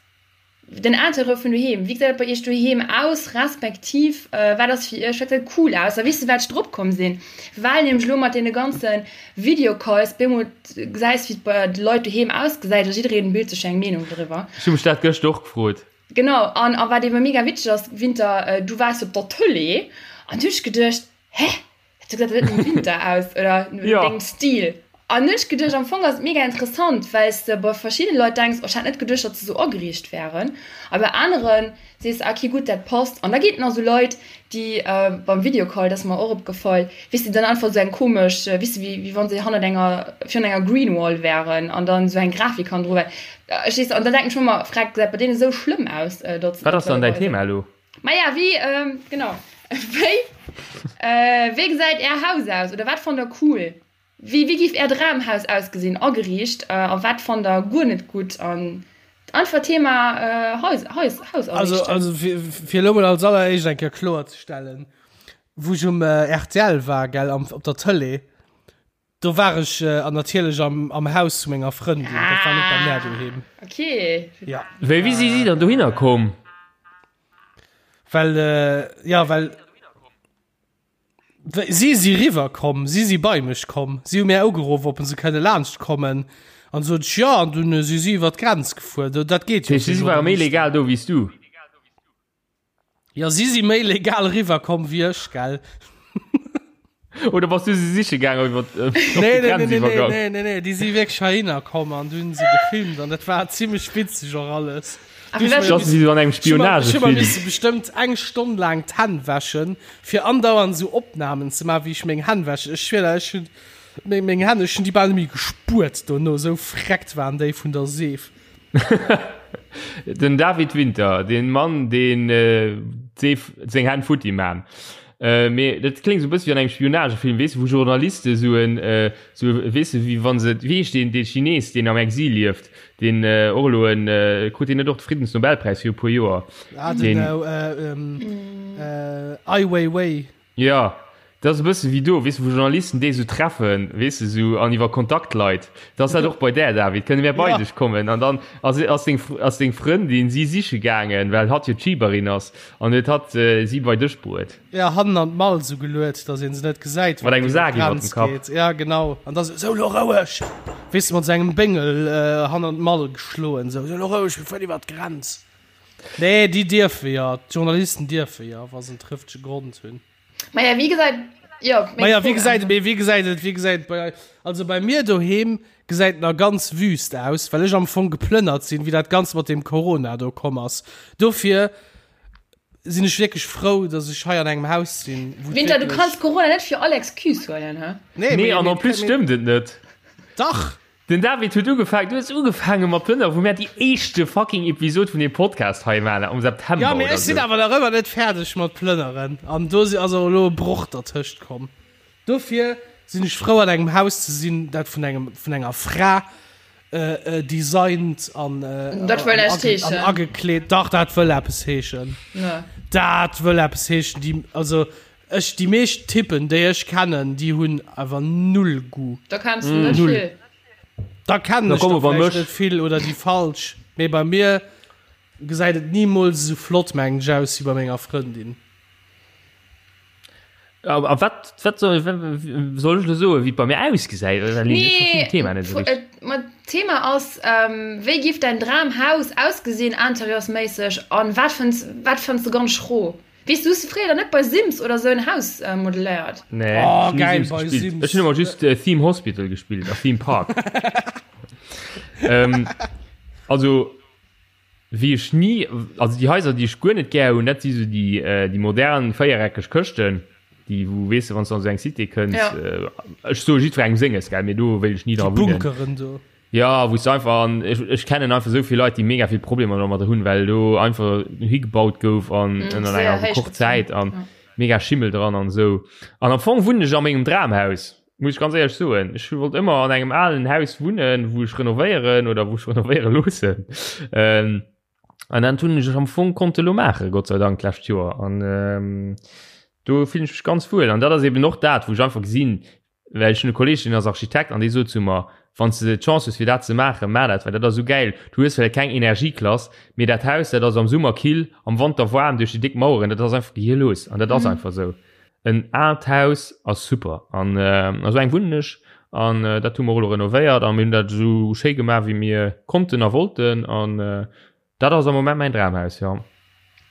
Den Interieur vun doheem, wéi gesäit et bei iech doheem aus, respektiv wat ass fir iech, wat gesäit cool aus? A weess de wat ech drop komm sinn? Well nämlech elo mat deene ganze Videocalls bemol gesäis wéi et bei de Leit doheem ausgesäit a jiddereen bilt sech eng Meenung driwwer. Ech hu mech dat gëscht och gefrot. Genau, an a wat ebe mega witzeg ass, Winter, du waars op der Tëlee an du hunn ech geduecht, hä? Du gesäit dat net nom Winter aus oder no ja. dengem Stil. An hunn ech geduecht, am Fong ass et mega interessant, well s de bei verschiddene Leit denks, oh, ech hat net geduecht, datt se sou ageriicht wären. A bei aneren sees de, okay, gutt, dat passt. An da ginn et nach sou Leit, déi äh, beim Videocall, dat ass mer och opgefall, weess de, dann einfach sou eng komesch, äh, weess de, wéi, wéi wann se hannert enger, virun enger Green Wall wären an dann sou eng Grafik hannendru wär. Ech weess, an da denken ech mer ëmmer, Freck, gesäit bei deene sou schlëmm aus, äh, datt se Wat ass dann däin Thema elo? Maja, wéi, ähm, genau. Wéi, äh, wéi gesäit Är Haus aus? Oder wat fannt der cool? Wéi, wéi giff Är Dramhaus ausgesinn, ageriicht? Äh, a wat fannt der guer net gutt? An einfach Thema, äh, Haus, Haus, Haus Also, ariichten. also fir, fir elo mol als alleréischt eng Kéier kloerzestellen, wou ech um äh, rtl war, gell, am, op der Tëlee, Do war ech an natierlech am, am Haus zu menger Frëndin. Dat war net bei mär doheem. Ah, okay. Ja. Wéi, wéi si si dann dohinner komm? Well, äh, ja, well si si riwwer komm, si si bei mech komm. Si hu mär ugeruff, ob se kënne laanscht kommen. An sot ech ja, an dunn si si iwwer d'Grenz gefuer. Dat geet jo. Si ware méi legal do wéi s du. Ja si si méi legal riwwer komm wéi ech, gell? Oder bass du se siche gaang iwwer äh, nee, nee, nee, nee, nee, nee, nee, nee, déi si wierklech heihinner komm an dunn se gefilmt an dat war zimmlech witzeg och alles. Si an engem Spionagefilm. Ech bestëmmt eng Stonn laang d'Hänn wäschen, fir andauernd esou Opnamen ze maachen, wéi ech meng Hänn wäschen. Ech schwier der, ech hunn meng Hänn, ech hunn déi bal net méi gespuert dono, esou vreckt waren déi vun der Seef. Den David Winter, den Mann deen d'Seef seng Hänn futti man. Mee dat kléngt sou e bësse wéi an engem Spionagefilm, weess de, wou Journaliste sou en sou weess de wéi wann se wéi heescht deen dee Chines deen am Exil lieft, deen och elo en krut deen net och de Friddensnobelpräis viru puer Joer? Ah den Ai Weiwei. Jo, dat ass e bësse wéi do, weess de, wou Journalisten déi esou treffen, weess de, esou an iwwer Kontaktleit. Dat ass dat och bei där, David. Kënne mär bei dech kommen? An dann ass, ass deng, ass deng Frëndin si siche gaangen, well hatt jo d'Schiberin ass, an huet hatt si bei dech bruet. Ja, hannen an d'Mall esou geluet, datt een se net gesäit, Mat engem Sak iwwer dem Kapp. Ja, genau. An da sou, Sou, lo roueg! Weess de, mat esou engem Béngel hannen an d'Mall geschloen, sou, Sou, lo roueg, mir fueren iwwer d'Grenz. Nee, déi dierfe jo, d'Journalisten dierfe jo, wa se en trëftege Grond hunn. Maja, wéi gesäit, jo, meng Maja, wéi Fro gesäit, mee wéi gesäit et, wéi gesäit et bei eis, also bei mir doheem gesäit et nach ganz wüst aus, well ech am Fong geplënnert sinn, wéi dat Ganzt mat deem Corona do komm ass. Dofir sinn ech wierklech frou, dass ech hei an engem Haus sinn, wou et Winter, du wierklech. kanns Corona net fir all Excuse huelen, hä? Nee, Nee, an en plus stëmmt et net. Dach! Den David huet ugefaangen, du hues ugefaange mat plënnere wou mär déi éischte fucking Episod vun deem Podcast hei maachen, am September Ja, mee ech sinn awer nach ëmmer net fäerdeg mat plënneren an do si ass och elo e Broch dertëscht komm. Dofir sinn ech frou an engem Haus ze sinn, dat vun engem, vun enger Fra designt an Dat wëll näischt heeschen. an agekleet. Dach, dat wëll eppes heeschen. Dat wëll eppes heeschen. Déi, also Ech, déi meescht Typen déi ech kennen, déi hunn awer null Goût. Da kenns de net vill. Da kennen ech der vläicht net vill oder déi falsch, mee bei mir gesäit et nimools esou flott mengen ech aus wéi bei menger Frëndin. A wat wat soll soll ech elo soen, wéi et bei mir ausgesäit? Nee, ma d'Thema ass, wéi giff däin Dramhaus ausgesinn interieursméisseg an wat fënns wat fënns de ganz schro? Weess du, hues du fréier dann net bei Sims oder sou en Haus modelléiert? Nee, oh, ech geil, Sims bei Sims. Ech hunn ëmmer just äh, Theme Hospital gespillt a Theme Park. ähm, also wéi ech nie, also déi Haiser, déi ech guer net gär hunn, dat si sou déi, äh, déi modern véiereckeg Këschten, déi wou weess de, wann s du an sou eng Cité kënns, ja. äh, ech soe jiddwerengem senges, gell, mee do wéilt ech ni dra wunnen. Bunkeren do. Jo, wou s de einfach an ech ech kennen einfach esou vill Leit, déi mega vill Problemer domadder hunn, well do einfach higebaut gouf an ënner enger Rekordzäit an mega Schimmel dran an esou. An am Fong wunnen ech a mengem Dramhaus, muss ech ganz éierlech soen. Ech wollt ëmmer an engem alen Haus wunnen, wou ech renovéieren oder wou ech renovéiere loossen. An dat hunn ech am Fong konnte elo maachen, Gott sei Dank, d'lescht Joer. An do fillen ech mech ganz wuel. An dat ass eben och dat, wou ech einfach gesinn, Well ech hunn e Kolleeg, deen ass Architekt an dee sot zu mer, Wann s de d'Chance hues fir dat ze maachen, maach dat, well dat ass esou gäil. Du hues vläicht keng Energieklass, mee dat Haus, dat ass am Summer kill, am Wanter waarm duerch déi déck Maueren, dat ass einfach gehirlos an dat ass einfach esou. En aalt Haus ass super an a sou engem wunnen ech an dat hu mer och elo renovéiert a mir hunn dat esou schéi gemaach wéi mir konnten a wollten an Dat ass am Moment mäin Dramhaus, jo.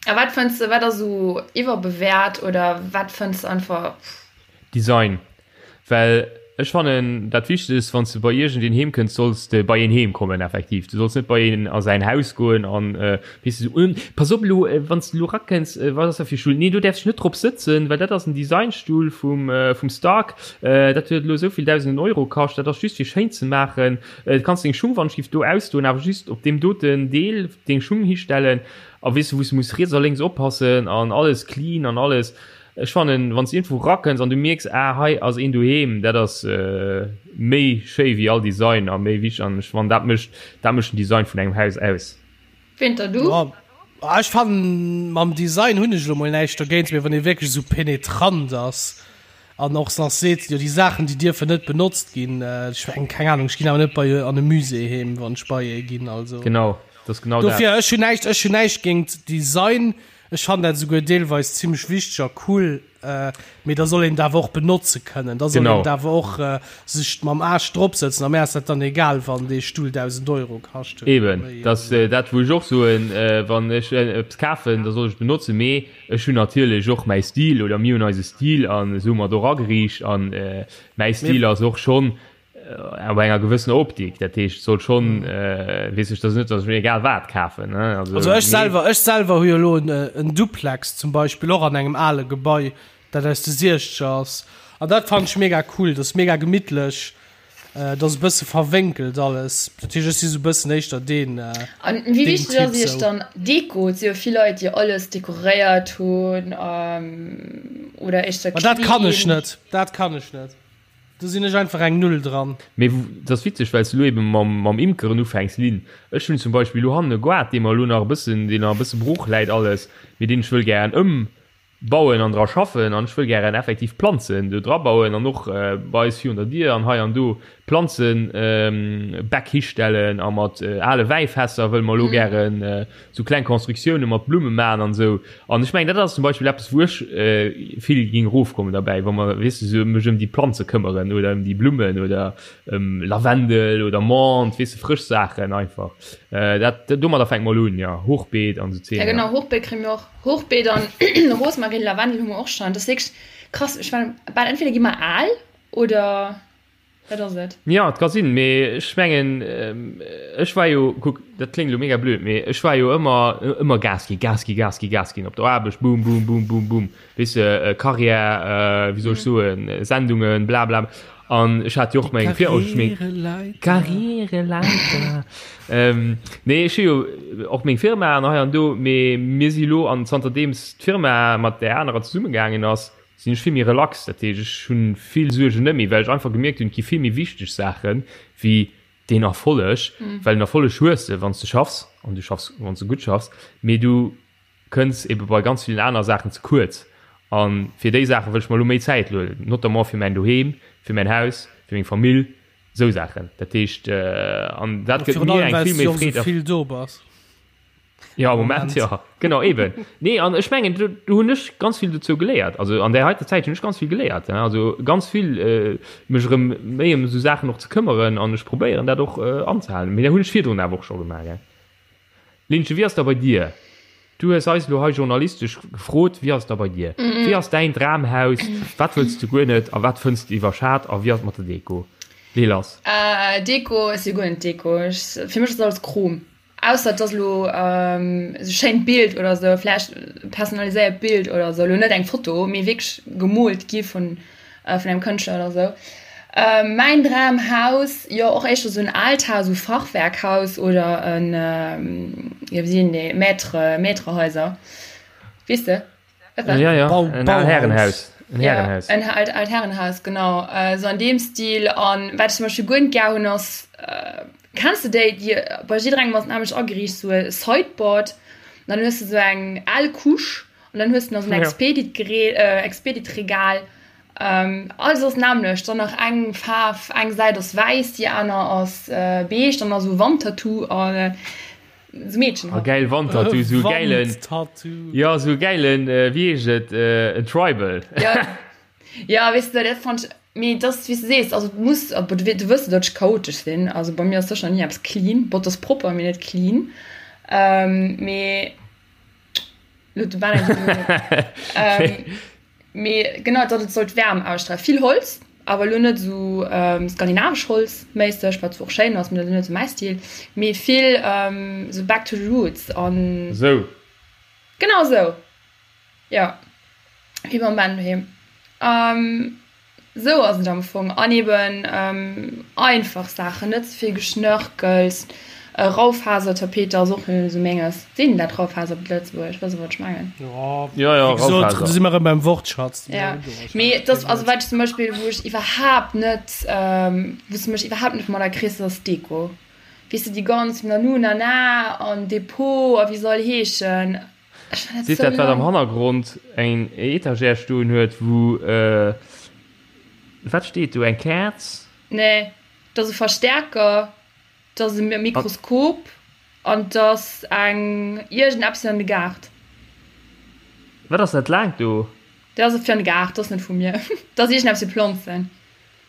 A wat fënns de, wat ass esou iwwerbewäert oder wat fënns de einfach. Design. Well ech fannen dat Wichtegst, wann s de bei iergendeen heem kënns, solls de bei een heem kommen effektiv. Du solls net bei een a säin Haus goen an, weess de, esou, Pass op elo, wann s de elo rakënns, wat ass dat fir e Stull? Nee, do däerfs de net drop sëtzen, well dat ass en Designstull vum, vum Stark, dat huet elo esou vill dausenden Euro kascht, dat ass just fir schéin ze maachen. Du kanns deng Schung wann giff do ausdoen, awer just op deem doten Deel deng Schung histellen a weess du wous du muss riets a lénks oppassen an alles clean an alles. Ech fannen wanns du iergendwou rakënns an du mierks ah hei ass een doheem, dat ass méi schéi wéi all Design a méi wichteg an ech fannen dat mécht dat mécht den Design vun engem Haus aus. Winter du? Jo, ech fannen mam Design hunn ech elo mol näischt dergéint, mee wann ee wierklech esou penetrant ass an och nach seet, jo déi Saachen déi dierfen net benotzt ginn, ech mengen keng Ahnung, ech ginn awer net bei an e Musée heem wann ech bei ee ginn, also Genau, dat ass genau dat. dofir ech hunn näischt, ech hunn näischt géingt Design, ech fannen dat esouguer deelweis zimmlech wichteg a cool, Mee da soll een et awer och benotze kënnen. Da soll een et awer och sech mam Aarsch drop sëtzen. A mär ass dat dann egal, wann dee Stull 1.000 Euro kascht huet. Eben, dat ass dat, wou ech och soen, wann ech eppes kafen, da soll ech et benotzen. Mee ech hunn natierlech och mäi Stil oder mir hunn eise Stil an esou hu mer et och ageriicht. An mäi Stil ass och schonn Op enger gewëssener Optik, dat heescht soll schon äh, weess ech, dat net, datt ech mir egal wat kafen. Ne? Also, also ech selwer, ech selwer hu jo elo en, äh, en Duplex zum Beispill och an engem ale Gebai, dat aus de Siechzeger ass. An dat fannen ech mega cool, dat ass mega gemittlech, äh, dat ass e bësse verwénkelt alles. Dat heescht, ech si sou e bëssen éischter deen, äh, An wéi wichteg ass iech dann Deko? Et si jo vill Leit, déi alles dekoréiert hunn, ähm, oder éischter clean. Ma dat kann ech net, dat kann ech net. Do sinn ech einfach eng Null dran. Mee et ass witzeg, well s de elo eben mam Imkeren ufänks, Lynn. Ech hunn zum Beispill elo hannen e Goart, dee mer elo nach e bëssen, deen nach e bësse brooch läit alles, mee deen ech wëll gären ëmbauen an dra schaffen an ech wëll gären effektiv Planzen do dra bauen an och bei eis virun der Dier an hei an do Planzenbäck histellen a mat ale Wäifässer wëlle mer elo gären sou kleng Constructiounen mat Blumme maachen an esou. An ech mengen, dat ass zum Beispill eppes, wou ech vill géing erofkommen derbäi, wa mer, weess de, sou mech ëm déi Planze këmmeren oder ëm déi Blummen oder ëm Lavendel oder Menthe, weess de, frësch Saachen einfach. Dat, domadder fänkt mol un, jo, Hochbeet an esou Zeeër. Ja genau, Hochbeet kréie mir och. Hochbeet an Rosmarin, Lavendel hu mer och schonn. Dat ass wierklech krass. Ech war bal, entweder gi mer al oder. Wat ass et? Jo, et ka sinn, mee ech mengen, ech war jo, kuck, dat kléngt elo mega blöd, mee ech war jo ëmmer, ëmmer Gas ginn, Gas ginn, Gas ginn, Gas ginn op der Aarbecht, boom, boom, boom, boom, boom, weess de, Karriär, wéi soll ech soen, Sendungen, bla bla. An ech hat jo och meng Fir-, Karriereleiter. Karriereleiter. Nee, ech hu jo och meng Firma an hei an do, mee mir si lo, an zanterdeems d'Firma mat där anerer zesummegaangen ass, sinn ech vill méi relax, dat heescht ech hunn vill Suergen net méi, well ech einfach gemierkt hunn, et gi vill méi wichteg Saachen wéi deen Erfolleg, well den Erfolleg hues de wann s de schaffs an du schaffs wann s de gutt schaffs, mee du kënns ebe bei ganz villen aner Saachen ze kuerz a fir déi Saache wëll ech mer elo méi Zäit huelen, notamment fir mäin Doheem, fir mäin Haus, fir meng Famill, esou Saachen. Dat heescht an dat gëtt mir eng vill méi Freed a. Virun allem well s du och esou vill do bass. Ja, am Moment, ja. Genau, eben. Nee, an ech mengen, do, do hunn ech ganz vill dozou geléiert. Also an där heiter Zäit hunn ech ganz vill geléiert. Ja. Also ganz vill äh, mech erëm méi ëm esou Saachen och ze këmmeren an ech probéieren dat och äh, anzehalen. Mee dat hunn ech virdrun awer och scho gemaach. Ja. Linche, wéi ass da bei dir? Du hues eis elo hei journalistesch gefrot, wéi ass da bei dir? Wéi ass däin Dramhaus? Wat wëlls du guer net a wat fënns du iwwerschat a wéi ass et mat der Deko? Lee lass. Äh, Deko, ech si guer net Deko. Ech, fir mech ass alles Chrom. Ausser et ass elo esou schéint Bild oder esou, vläicht e personaliséiert Bild oder esou, elo net eng Foto, mee wierklech gemoolt gi vun vun engem Kënschtler oder esou. Mäin Dramhaus, jo och éischter esou en aalt Haus, esou Fachwerkhaus oder en, jo wéi sinn déi, Maître, Maîtrehaiser, weess de? Ja, ja. Bau, en aalt Härenhaus. En Härenhaus. Ja, en aalt, aalt Herrenhaus, genau. Äh, so an deem Stil. An wat ich zum Beispiel guer net gär hunn, ass, äh, kenns du déi, déi bei jidderengem ass nämlech ageriicht, so e Sideboard. An dann hues du so eng al Couche an dann hues du nach so en Expedit-Gerät, äh, Expedit-Regal. Alles ass nämmlecht, dann nach eng Faarf, eng Säit ass wäiss, déi aner ass beige, dann nach esou Wandtattoo an esou Meedchen Ah, halt. geil Wandtattoo, sou gäilen, Wandtattoo. jo, sou gäilen, wéi heescht et, en Tribal. Ja, ja, weess de, dat fand ech, mee et ass wéi s de sees, also et muss, bon, du wëss jo, datt ech chaotesch sinn, also bei mir ass sécher ni eppes clean, bon, et ass propper, mee net clean, mee. Mee genau, datt et sollt Wärm ausstrahlen. Vill Holz, awer elo net esou skandinavesch Holz méisseg, wat zwar och schéin ass, mee dat ass net esou mäi Stil. Mee vill esou back to the roots an. Esou. Genau esou, jo. Wéi beim Ben doheem. Sou ass et am Fong. An eben einfach Saachen, net ze vill Geschnörkels. Raufasertapete ass och net esou menges. Seet een dat Raufaser op Lëtzebuergesch? Wësst der wat ech mengen? Jo, jo, wéi gesot, do si mer erëm beim Wortschatz. Ja, mee et ass, also wat ech zum Beispill, wou ech iwwerhaapt net, wou s de mech iwwerhaapt net mat erkriss, ass Deko. Weess de, déi ganz Nanu Nana an Depot a wéi se all heeschen. Seet dat wat am Hannergrond eng Etagère stoen huet wou wat steet do eng Käerz? Nee, et ass e Verstärker, et ass e Mikroskop an et ass eng iergendeppes fir an de Gaart. Wat ass dat laangt do? Dat ass fir an de Gaart, dat ass net vu mir. Dat ass iergendeppes fir Planzen.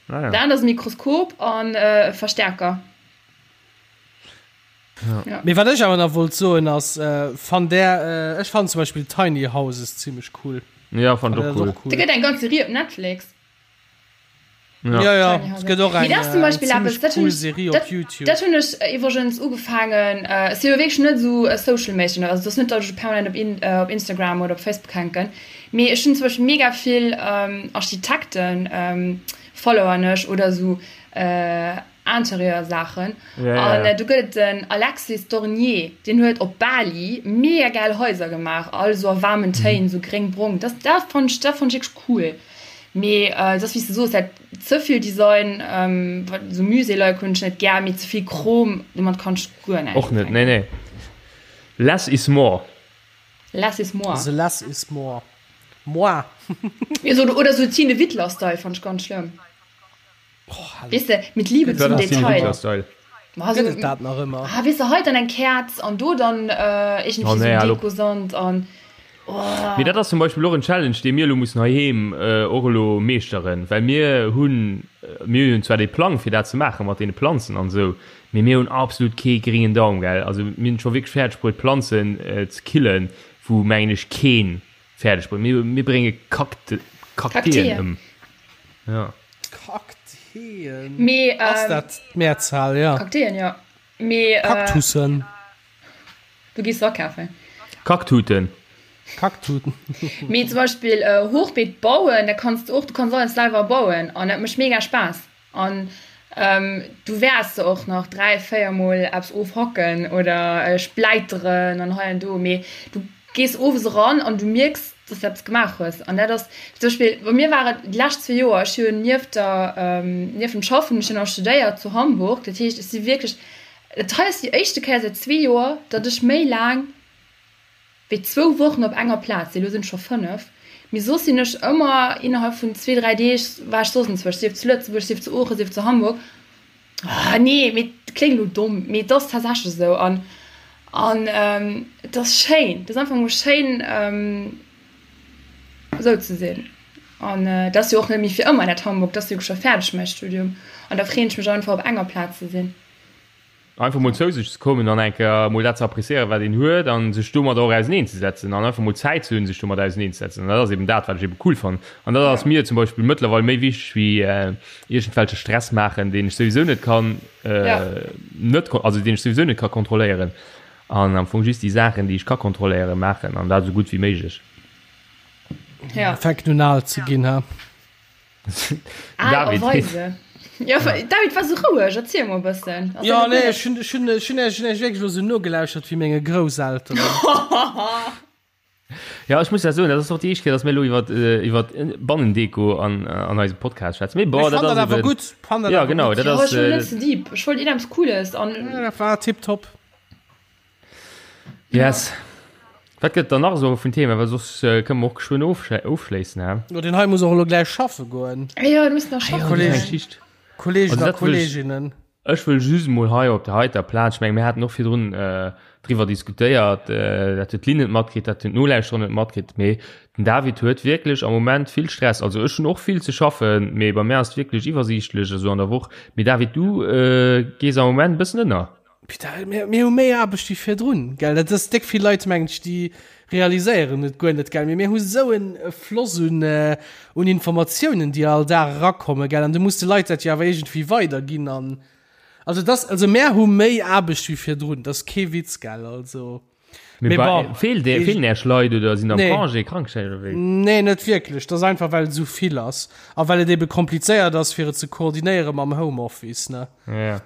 Ah ja. Dat anert ass e Mikroskop an e Verstärker. Ja. Mee wat ech awer nach wollt soen ass, äh, fannt där, äh, ech fannen zum Beispill Tiny Houses zimmlech cool. Ja, fand och cool. Da gëtt eng ganz Serie op Netflix. Ja, ja, ja. es gëtt och eng, Mee dat ass zum äh, Beispill zimmlech eppes, dat hunn cool ech, Serie op dat, YouTube. dat hunn ech iwwregens ugefaangen, äh, ech si jo wierklech net esou e Social Méischen, also et ass net, datt ech permanent op In, äh, op Instagram oder op Facebook hänken, mee ech hunn zum Beispill mega vill ähm, Architekten ähm, followern ech oder esou äh, Interieur-Saachen. Ja, ja, An ja. do gëtt et den Alexis Dornier, deen huet op Bali mega gäil Haiser gemaach, all esou a waarmen Téin, esou gréng-brong. Dat, dat fannt ech, dat fannt ech wierklech cool. Mee et ass wéi s de soos, dat ze vill Design, wat esou Musée-like hunn ech net gär, mee ze vill Chrom, domat kann ech guer näischt Och net, nee, ufänken. nee. Less is more. Less is more. The less is more. Moi. Oder sou Tine Wittler-Style fannt ech ganz schlëmm. Weess de, mit Liebe zum Detail. Gëtt et dat nach ëmmer? Ah, weess de, hei dann eng Käerz an do dann iergendwéi Oh, nee, sou hallo. Dekosand an oh. Mee dat ass zum Beispill och en Challenge, dee mir elo mussen heiheem och elo meeschteren, well mir hunn, mir hunn zwar dee Plang fir dat ze maache mat deene Planzen an esou, mee mir hunn absolut kee gréngen Daum, gell. Also mir hunn et scho wierklech fäerdeg bruet Planzen ze killen, wou mengen ech keen fäerdeg bréngt. Mir, mir brénge Kakte, Kakteen ëm. Ja. Kakteen. Mee, Ass ähm, dat d'Mehrzahl, ja. Kakteen, ja. Mee, äh, Kaktussen. Du gees se akafen. Kaktuten. Kaktuten. Mee zum Beispill äh, Hochbeet bauen, da kanns du och, du kanns alles selwer bauen an dat mécht mega Spaass. An du wäers se och nach 3, 4 mol eppes ofhacken oder spläiteren an hei an do, mee du gees owes eran an du mierks, dass du eppes gemaach hues. An dat ass zum Beispill, bei mir war et déi lescht zwee Joer, ech hunn nieft der, nieft dem Schaffen, ech hunn nach studéiert zu Hamburg, dat heescht, ech si wierklech, dat hei ass déi éischte Kéier säit zwee Joer, datt ech méi laang wéi zwou Wochen op enger Plaz sinn, elo sinn et scho 5, mee soss sinn ech ëmmer innerhalb vun zwee, dräi Deeg war ech soss enzwousch, sief zu Lëtzebuerg, sief zu Oochen, sief zu Hamburg. Ah nee, mee et kléngt elo domm, mee et ass tatsächlech esou an an et ass schéin, et ass einfach emol schéin esou ze sinn an et ass jo och net méi fir ëmmer dat Hamburg, et ass jo scho fäerdeg mäi Studium an da freeën ech mech einfach op enger Plaz ze sinn. Einfach mol zou sech ze kommen an eng Kéier mol dat ze appréciéieren, wat een huet an sech domadder och auseneenzesetzen an einfach mol Zäit ze hunn, sech domat auseneenzesetzen. An dat ass eben dat, wat ech eben cool fannen. An dat ass mir zum Beispill mëttlerweil méi wichteg wéi iergendwelche Stress maachen, deen ech souwisou net kann, net, also deen ech souwisou net ka kontrolléieren. An am Fong just déi Saachen, déi ech ka kontrolléieren, maachen an dat esou gutt wéi méiglech. Fänken un al ze ginn, ha? Al a weise. Ja, David war sou roueg, erziel mol e bëssen. Jo, nee, ech hunn, ech hunn, ech hunn iech wierklech elo sou nogelauschert wéi menge Grousselteren. Ja, ech muss ja soen, dat ass och déi éischt Kéier, datt mir elo iwwer, iwwer Bannendeko an, an eisem Podcast schwätzen. Mee bon, Ech dat fann dat ass awer eben. gutt, fann dat Ja, awer genau, gutt. dat Jo, ass. ech wor net ze deep. Ech wollt iergendeppes Cooles an. Ja, dat war tiptop. Yes. Wat gëtt dann nach esou vun Thema, well soss kënne mer och geschwënn ofschléissen, hä? Jo, deen hei muss och elo gläich schaffe goen. Jo, du muss nach schaffen. Kolleg, Kollegen a Kolleginnen. Ech wëll just emol hei op der heiter Plaz, ech menge mir haten och virdrun driwwer diskutéiert, dat huet d'Lynn net matkritt, dat hunn d'Nolauschterer net matkritt, mee den David huet wierklech am Moment vill Stress. Also ech hunn och vill ze schaffen, mee bei mär ass et wierklech iwwersiichtlech esou an der Woch. Mee David, du gees am Moment e bëssen ënner. Putain, mir, mir hu méi Aarbecht wéi virdrun, gell? Dat ass déck vill Leit, mengen ech, déi realiséieren et guer net, gell? Mee mir hu sou en Floss un, un Informatiounen, déi all Dag erakommen, gell? An du muss de Leit dat jo awer iergendwéi weiderginn an, also dass, also mär hu méi Aarbecht wéi virdrun, dat ass kee Witz, gell? Also. Mee bon, feelt dir, feelen Iech Leit oder sinn am nee. Congé, Krankschäin oder wéi? Nee, net wierklech. Dat ass einfach, well et esou vill ass a well et ebe komplizéiert ass, fir et ze koordinéiere mam Homeoffice, ne? Ja.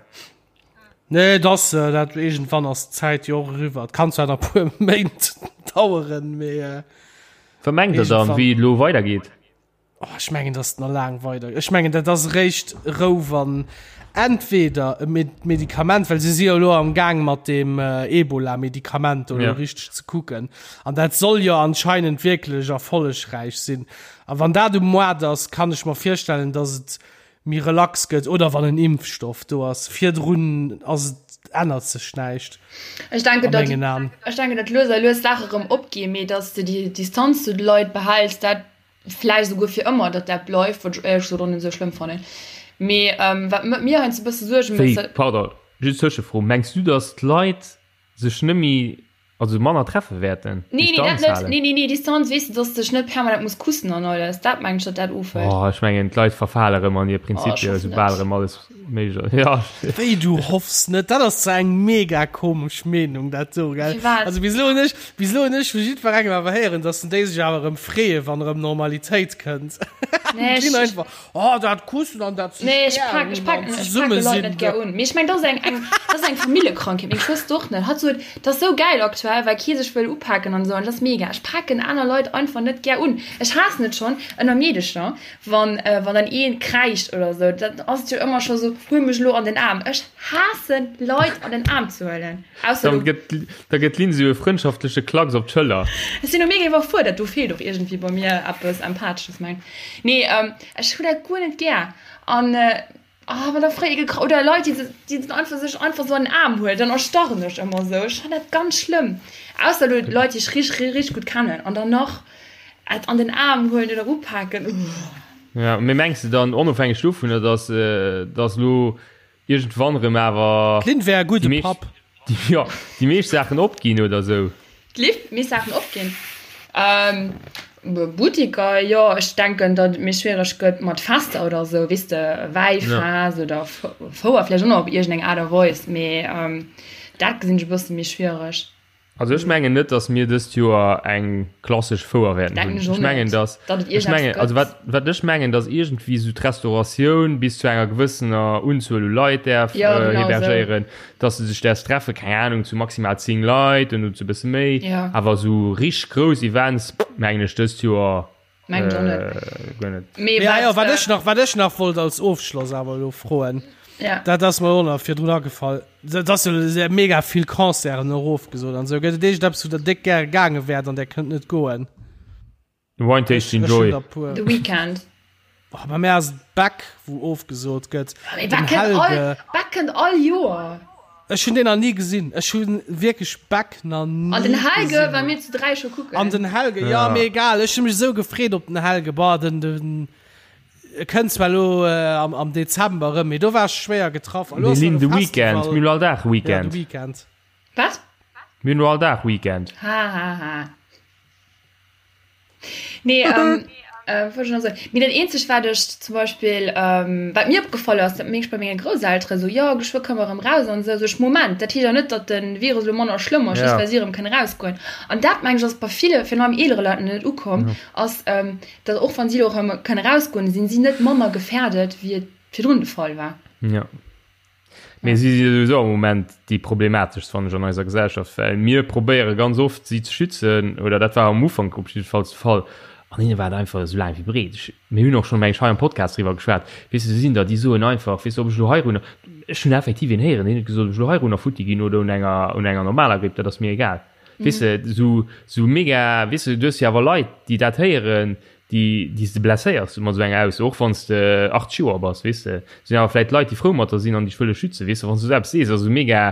Nee, dass äh, dat irgendwann ass d'Zäit jo och eriwwer. Et kann zwar nach puer Méint daueren, mee äh, Wat mengt der dann, wéi et elo weidergeet? Oh, ech mengen, dass et nach laang weider. Ech mengen, dat ass eréischt Rou, wann entweder e Med Medikament, well se si jo elo am Gaang mat deem äh, Ebola-Medikament do elo Ja. richteg ze kucken. An dat soll jo anscheinend wierklech erfollegräich sinn. A wann dat um Moart ass, kann ech mer virstellen, dass et méi relax gëtt oder wann en Impfstoff do ass. Virdrun ass et, ännert sech näischt Ech denken, a mengen Aen. Ech denken, datt lues a lues d'Saache rëm opginn, mee datt s de déi Distanz zu de Leit behäls, dat vläicht esouguer fir ëmmer, datt dat bleift, wat ech éierlech gesot och net esou schlëmm fannen. Mee wat mir heiansdo e bësse Suerge mécht, Wéi, pardon, just Tëschefro, mengs du, datt d'Leit sech net méi, also manner treffe wäerten? Nee, nee, dat net. Nee, nee, nee, Distanz, weess de, dass de dech net permanent muss kussen an alles. Dat mengen ech, datt dat ofhëlt. Oh, ech mengen, d'Leit verfale rëm an hir Prinzipien, oh, soubal rëm alles méiglech ass. Ja. Wéi, du hoffs net? Dat ass zwar eng mega komesch Meenung, dat do, gell? Firwat? Also bis elo hunn ech, bis elo hunn ech vu jiddwerengem awer héieren, dass déi sech awer rëm freeën, wann erëm Normalitéit kënnt. Nee, ech, einfach, Oh, dat Kussen an dat sech Nee, ech pak, ech pak, ech pake Leit net gär un. Mee ech meng, dat ass eng, eng, dat ass eng Familljekrankheet. Meng Schwëster och net. Hatt sot, dat ass sou gäil aktuell, well kee sech wëll upaken an esou. An dat ass mega. Ech paken aner Leit einfach net gär un. Ech haassen et schonn ënner Meedecher, wann, wann dann ee kräischt oder esou. Dann ass et jo ëmmer scho sou, huel mech elo an den Aarm. Ech haassen Leit an den Aarm ze huelen. Ausser du. Da gëtt d'Lynn sou e frëndschaftleche Klacks op d'Schëller. Ech sinn elo mega iwwerfuerdert. Do feelt och iergendwéi bei mir eppes Empathesches, meng. Nee, ech hu dat guer net gär. An ah, wann da fréi gekra oder Leit, déi déi dann einfach sech einfach sou an den Aarm huelen, dann erstarren ech ëmmer sou. Ech fannen dat ganz schlëmm. Ausser elo Leit, déi ech richteg, richteg gutt kennen an dann nach et an den Aarm huelen oder upaken, uuh. Ja, mee mengs de dann, onofhängeg dovunner, dass dass elo Iergendwann rëm awer. D'Lynn wär e gudde Papp. Jo, déi meescht Saachen opginn oder sou. D'Lynn, meescht Saachen opginn? Buttiker, jo. Ech denken, datt et méi schwiereg gëtt mat Fester oder sou, weess de, Wäifest oder Fouer vläicht och nach op iergendeng Aart a Weis, mee dat gesinn ech e bësse méi schwiereg. Also ech mengen net, dass mir dëst Joer eng klassesch Fouer wäerten hunn. Ech mengen, dass, ech mengen, also wat, wat ech mengen, dass iergendwéi esou d'Restauratioun bis zu enger gewëssener Unzuel u Leit däerf ja, genau hebergéieren, so. dass se sech däerf treffen, keng Ahnung, zu maximal 10 Leit und zu bësse méi. Ja. Awer esou richteg grouss Events, mengen ech dëst Joer Mengen ech och net. Guer net. Mee Ja, ja, wat ech nach, wat ech nach wollt als Ofschloss awer elo froen, Ja. dat ass mer och nach virdrun agefall, dat ass jo sehr mega vill Concerten och ofgesot an esou. Gëtt et iergendeppes, wou der déck gäre gaange wäert an der kënnt net goen? Wine Tasting Ech hunn Joy. der puer. The Weeknd. Oh, bei mär ass et Beck, wou ofgesot gëtt. Mee Den Beck kënnt all, Helge. Beck kënnt all Joer. Ech hunn deen nach ni gesinn. Ech hu wierklech Beck nach ni An den Helge gesinn. war mir zu 3 scho kucken. An den Helge, ja, Ja. mee egal. Ech hu mech esou gefreet op den Helge. Boah, den, den e kënnt zwar elo äh, am, am Dezember erëm, mee do war ech schwéier getraff. A lo Mir ass nach linn e de Weekend. Festival. Mir hunn all Dag Ja, de Weekend. Weekend. Wat? Mir hunn elo all Dag Weekend. Ha, ha, ha. Nee, ähm, äh, wollt ich noch soen. Mee dat eenzegt, wat ech zum Beispill, ähm, wat mir opgefall ass, dat mierk ech bei menge Grousseltere sou, jo, geschwë kënne mer erëm raus an esou. Sou ech, Moment, dat heescht awer net, datt de Virus elo manner schlëmm ass, just Ja. well si erëm kënne rausgoen. An dat, meng ech, ass bei ville, virun allem eelere Leit, nach net ukomm, Ja. ass, ähm, datt och wann si elo erëm kënne rausgoen, sinn si net manner gefährdet, wéi et virdrun de Fall war. Ja. Mee si si souwisou am Moment déi problemateschst, fannen ech, an eiser Gesellschaft, well mir probéiere ganz oft, si ze schützen, oder dat war am Ufank op jiddefalls de Fall, an hinne war et einfach esou laang wéi breet. Ech, mir hunn och schonn, meng ech, hei am Podcast driwwer geschwat, weess de, do sinn der, déi soen einfach, weess de, ob ech elo heirunner, ech hunn effektiv een héieren, deen huet gesot, ob ech elo heirunner futti ginn oder un enger, un enger normaler Gripp, dat ass mir egal. Weess de, sou, sou mega, weess de, du hues jo awer Leit, déi dat héieren, déi, déi s de blesséiers mat esou enger Ausso, och wann s de 80 Joer bass, weess de. Sinn awer vläit Leit, déi frou mat der sinn an dech wëlle schützen, weess de. Wann s du esou eppes sees, ass esou mega,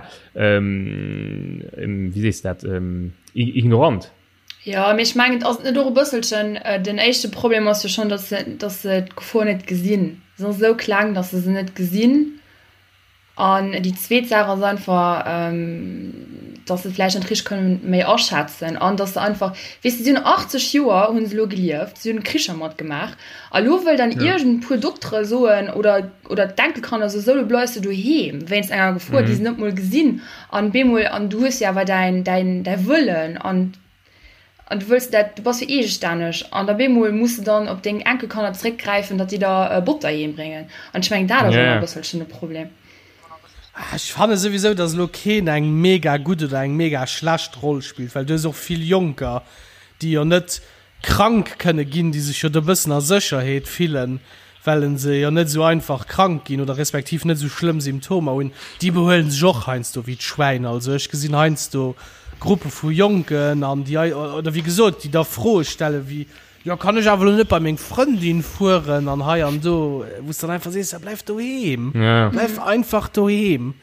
wéi sees de dat, ignorant. Jo, mee ech mengen, ass et net och e bësselchen, den éischte Problem ass jo schonn, datt se, datt se d'Gefor net gesinn. Se ass esou kleng, datt se se net gesinn. An déi zweet Saach ass einfach, datt se et vläicht net richteg kënnen méi aschätzen an datt se einfach, weess de, si hunn 80 Joer hu se elo gelieft, si hunn Kricher matgemaach a lo wëll dann iergend puer Doktere soen oder, oder d'Enkelkanner soen, sou, lo bleifs de doheem wéinst enger Gefor, déi se net mol gesinn. An bemol, an du hues jo awer däin, däin, däi Wëllen an, an du wëlls dat, du bass jo eegestänneg an da bemol muss de dann op deng Enkelkanner zréckgräifen, datt déi der Botter heem bréngen. An ech mengen, dat ass ëmmer e bësselchen de Problem. Ech fanne souwisou, datt elo keen eng mega gutt oder eng mega schlecht Roll spillt, well du hues och vill Jonker, déi jo net krank kënne ginn, déi sech jo do bëssen a Sécherheet fillen, well se jo net esou einfach krank ginn oder respektiv net esou schlëmm Symptomer hunn, déi behuelen sech och heiansdo wéi d'Schwäin. Also ech gesinn heiansdo Gruppe vu Jonken an déi, oder wéi gesot, déi da Froe stelle wéi, jo kann ech awer elo net bei meng Frëndin fueren an hei an do, wou s de dann einfach sees, ja bleif doheem, bleif einfach doheem.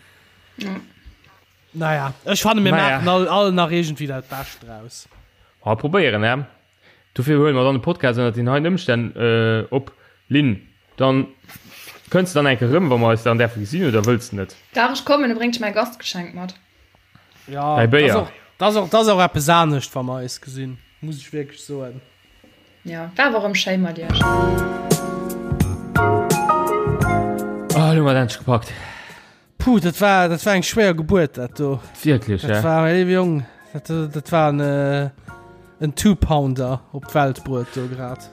Naja, ech fanne mir maachen all, all nach iergendwéi dat Bescht draus. Ma probéieren, hä? Dofir huele mer dann de Podcast ënnert den heien Ëmstänn op. Lynn, dann kënns de dann eng Kéier erëm, wa mer eis dann däerfe gesinn, oder wëlls de net? Dach, ech kommen, da bréngt ech mäi Gastgeschenk mat. Ja, Däi Béier. Dat ass och, dat ass och, dat ass och eppes anescht, wa mer eis gesinn, muss ech wierklech soen. Ja, war awer erëm schéi mat iech. Oh, elo hu mer et endlech gepackt. Puh, dat war, dat war eng schwéier Gebuert, dat do. Wierklech, Dat war, mäi léiwe Jong, dat, dat war en, äh, en Two-Pounder op d'Welt bruet do grad.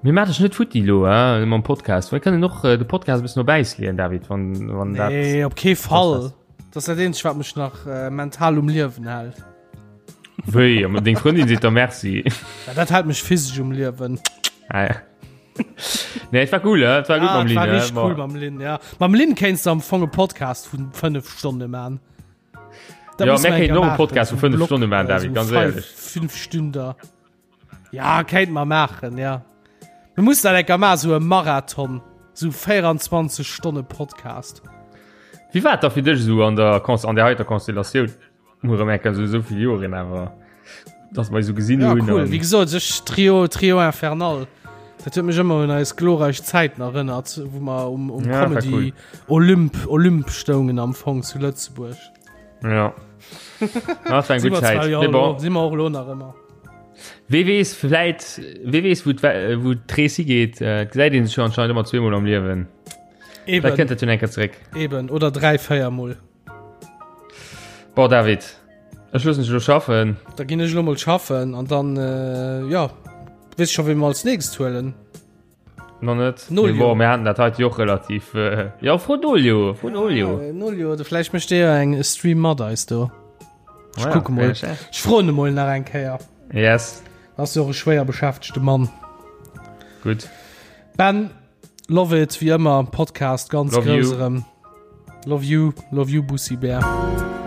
Mir maachen dech net futti elo, hein, mam Podcast. Mir kënnen och de Podcast e bëssen op Äis leeën, David, wann, wann dat. Nee, op kee Fall. Dat ass dat eenzegt, wat mech nach äh, mental um Liewen hält. Wéi? An deng Frëndin seet der Merci. Ja, dat hält mech physesch um Liewen. Ah, ja. Nee, et war cool, et war gutt mam Lynn. War richtig cool mam Lynn, ja. Mam Lynn kéinst du am Fong e Podcast vun 5 Stonne man. Da ja, mir kéinten och e Podcast vu 5 Stonne man, David, ganz éierlech. 5 Stünder. Ja, kéint mer maachen, ja. Mir mussen dat enker maachen, sou e Marathon, sou 24 Stonne Podcast. Wéi war et da fir dech esou an der, an der heiter Konstellatioun? Mol erëm eng Kéier sou esou vill Joren awer, dass mer eis esou gesinn Ja, hunn. cool. Wéi gesot, ech Trio, Trio Infernal. Dat huet mech ëmmer un eis glorreich Zäiten erënnert, wou mer um, um Ja, war Comedy cool. Olymp, Olymp stoungen am Fong zu Lëtzebuerg. Ja. Ja, dat war eng Si gutt mer zwar Zäit. jo Mee elo, bon, si mer och elo nach ëmmer. wee weess, vläit, wee weess, wou d'We- wou d'Rees higeet. Äh, et gesäit een sech jo anscheinend ëmmer zweemol am Liewen. Vläicht Eben, kënnt dat jo eng Kéier zeréck. eben. Oder 3, 4 Mol. Bon David, ech loossen dech elo schaffen. Da ginn ech elo mol schaffen an dann, äh, ja, weess scho wéi mer als nächst huelen. Nach net. Nolio. Bon, mir haten dat heite jo och relativ, äh, ja, fro Nolio, fro Nolio. Ja, Nolio, oder vläicht mécht dee jo eng Stream mat eis do. Ech Ja, kucke mol. vläicht, ja. Ech froen e mol nach eng Kéier. Yes. Ass jo och e schwéier beschäftegte Mann. Gutt. Ben, Love it, wéi ëmmer, Podcast ganz Love grouss you. erëm. Love you, love you Bussi Bär.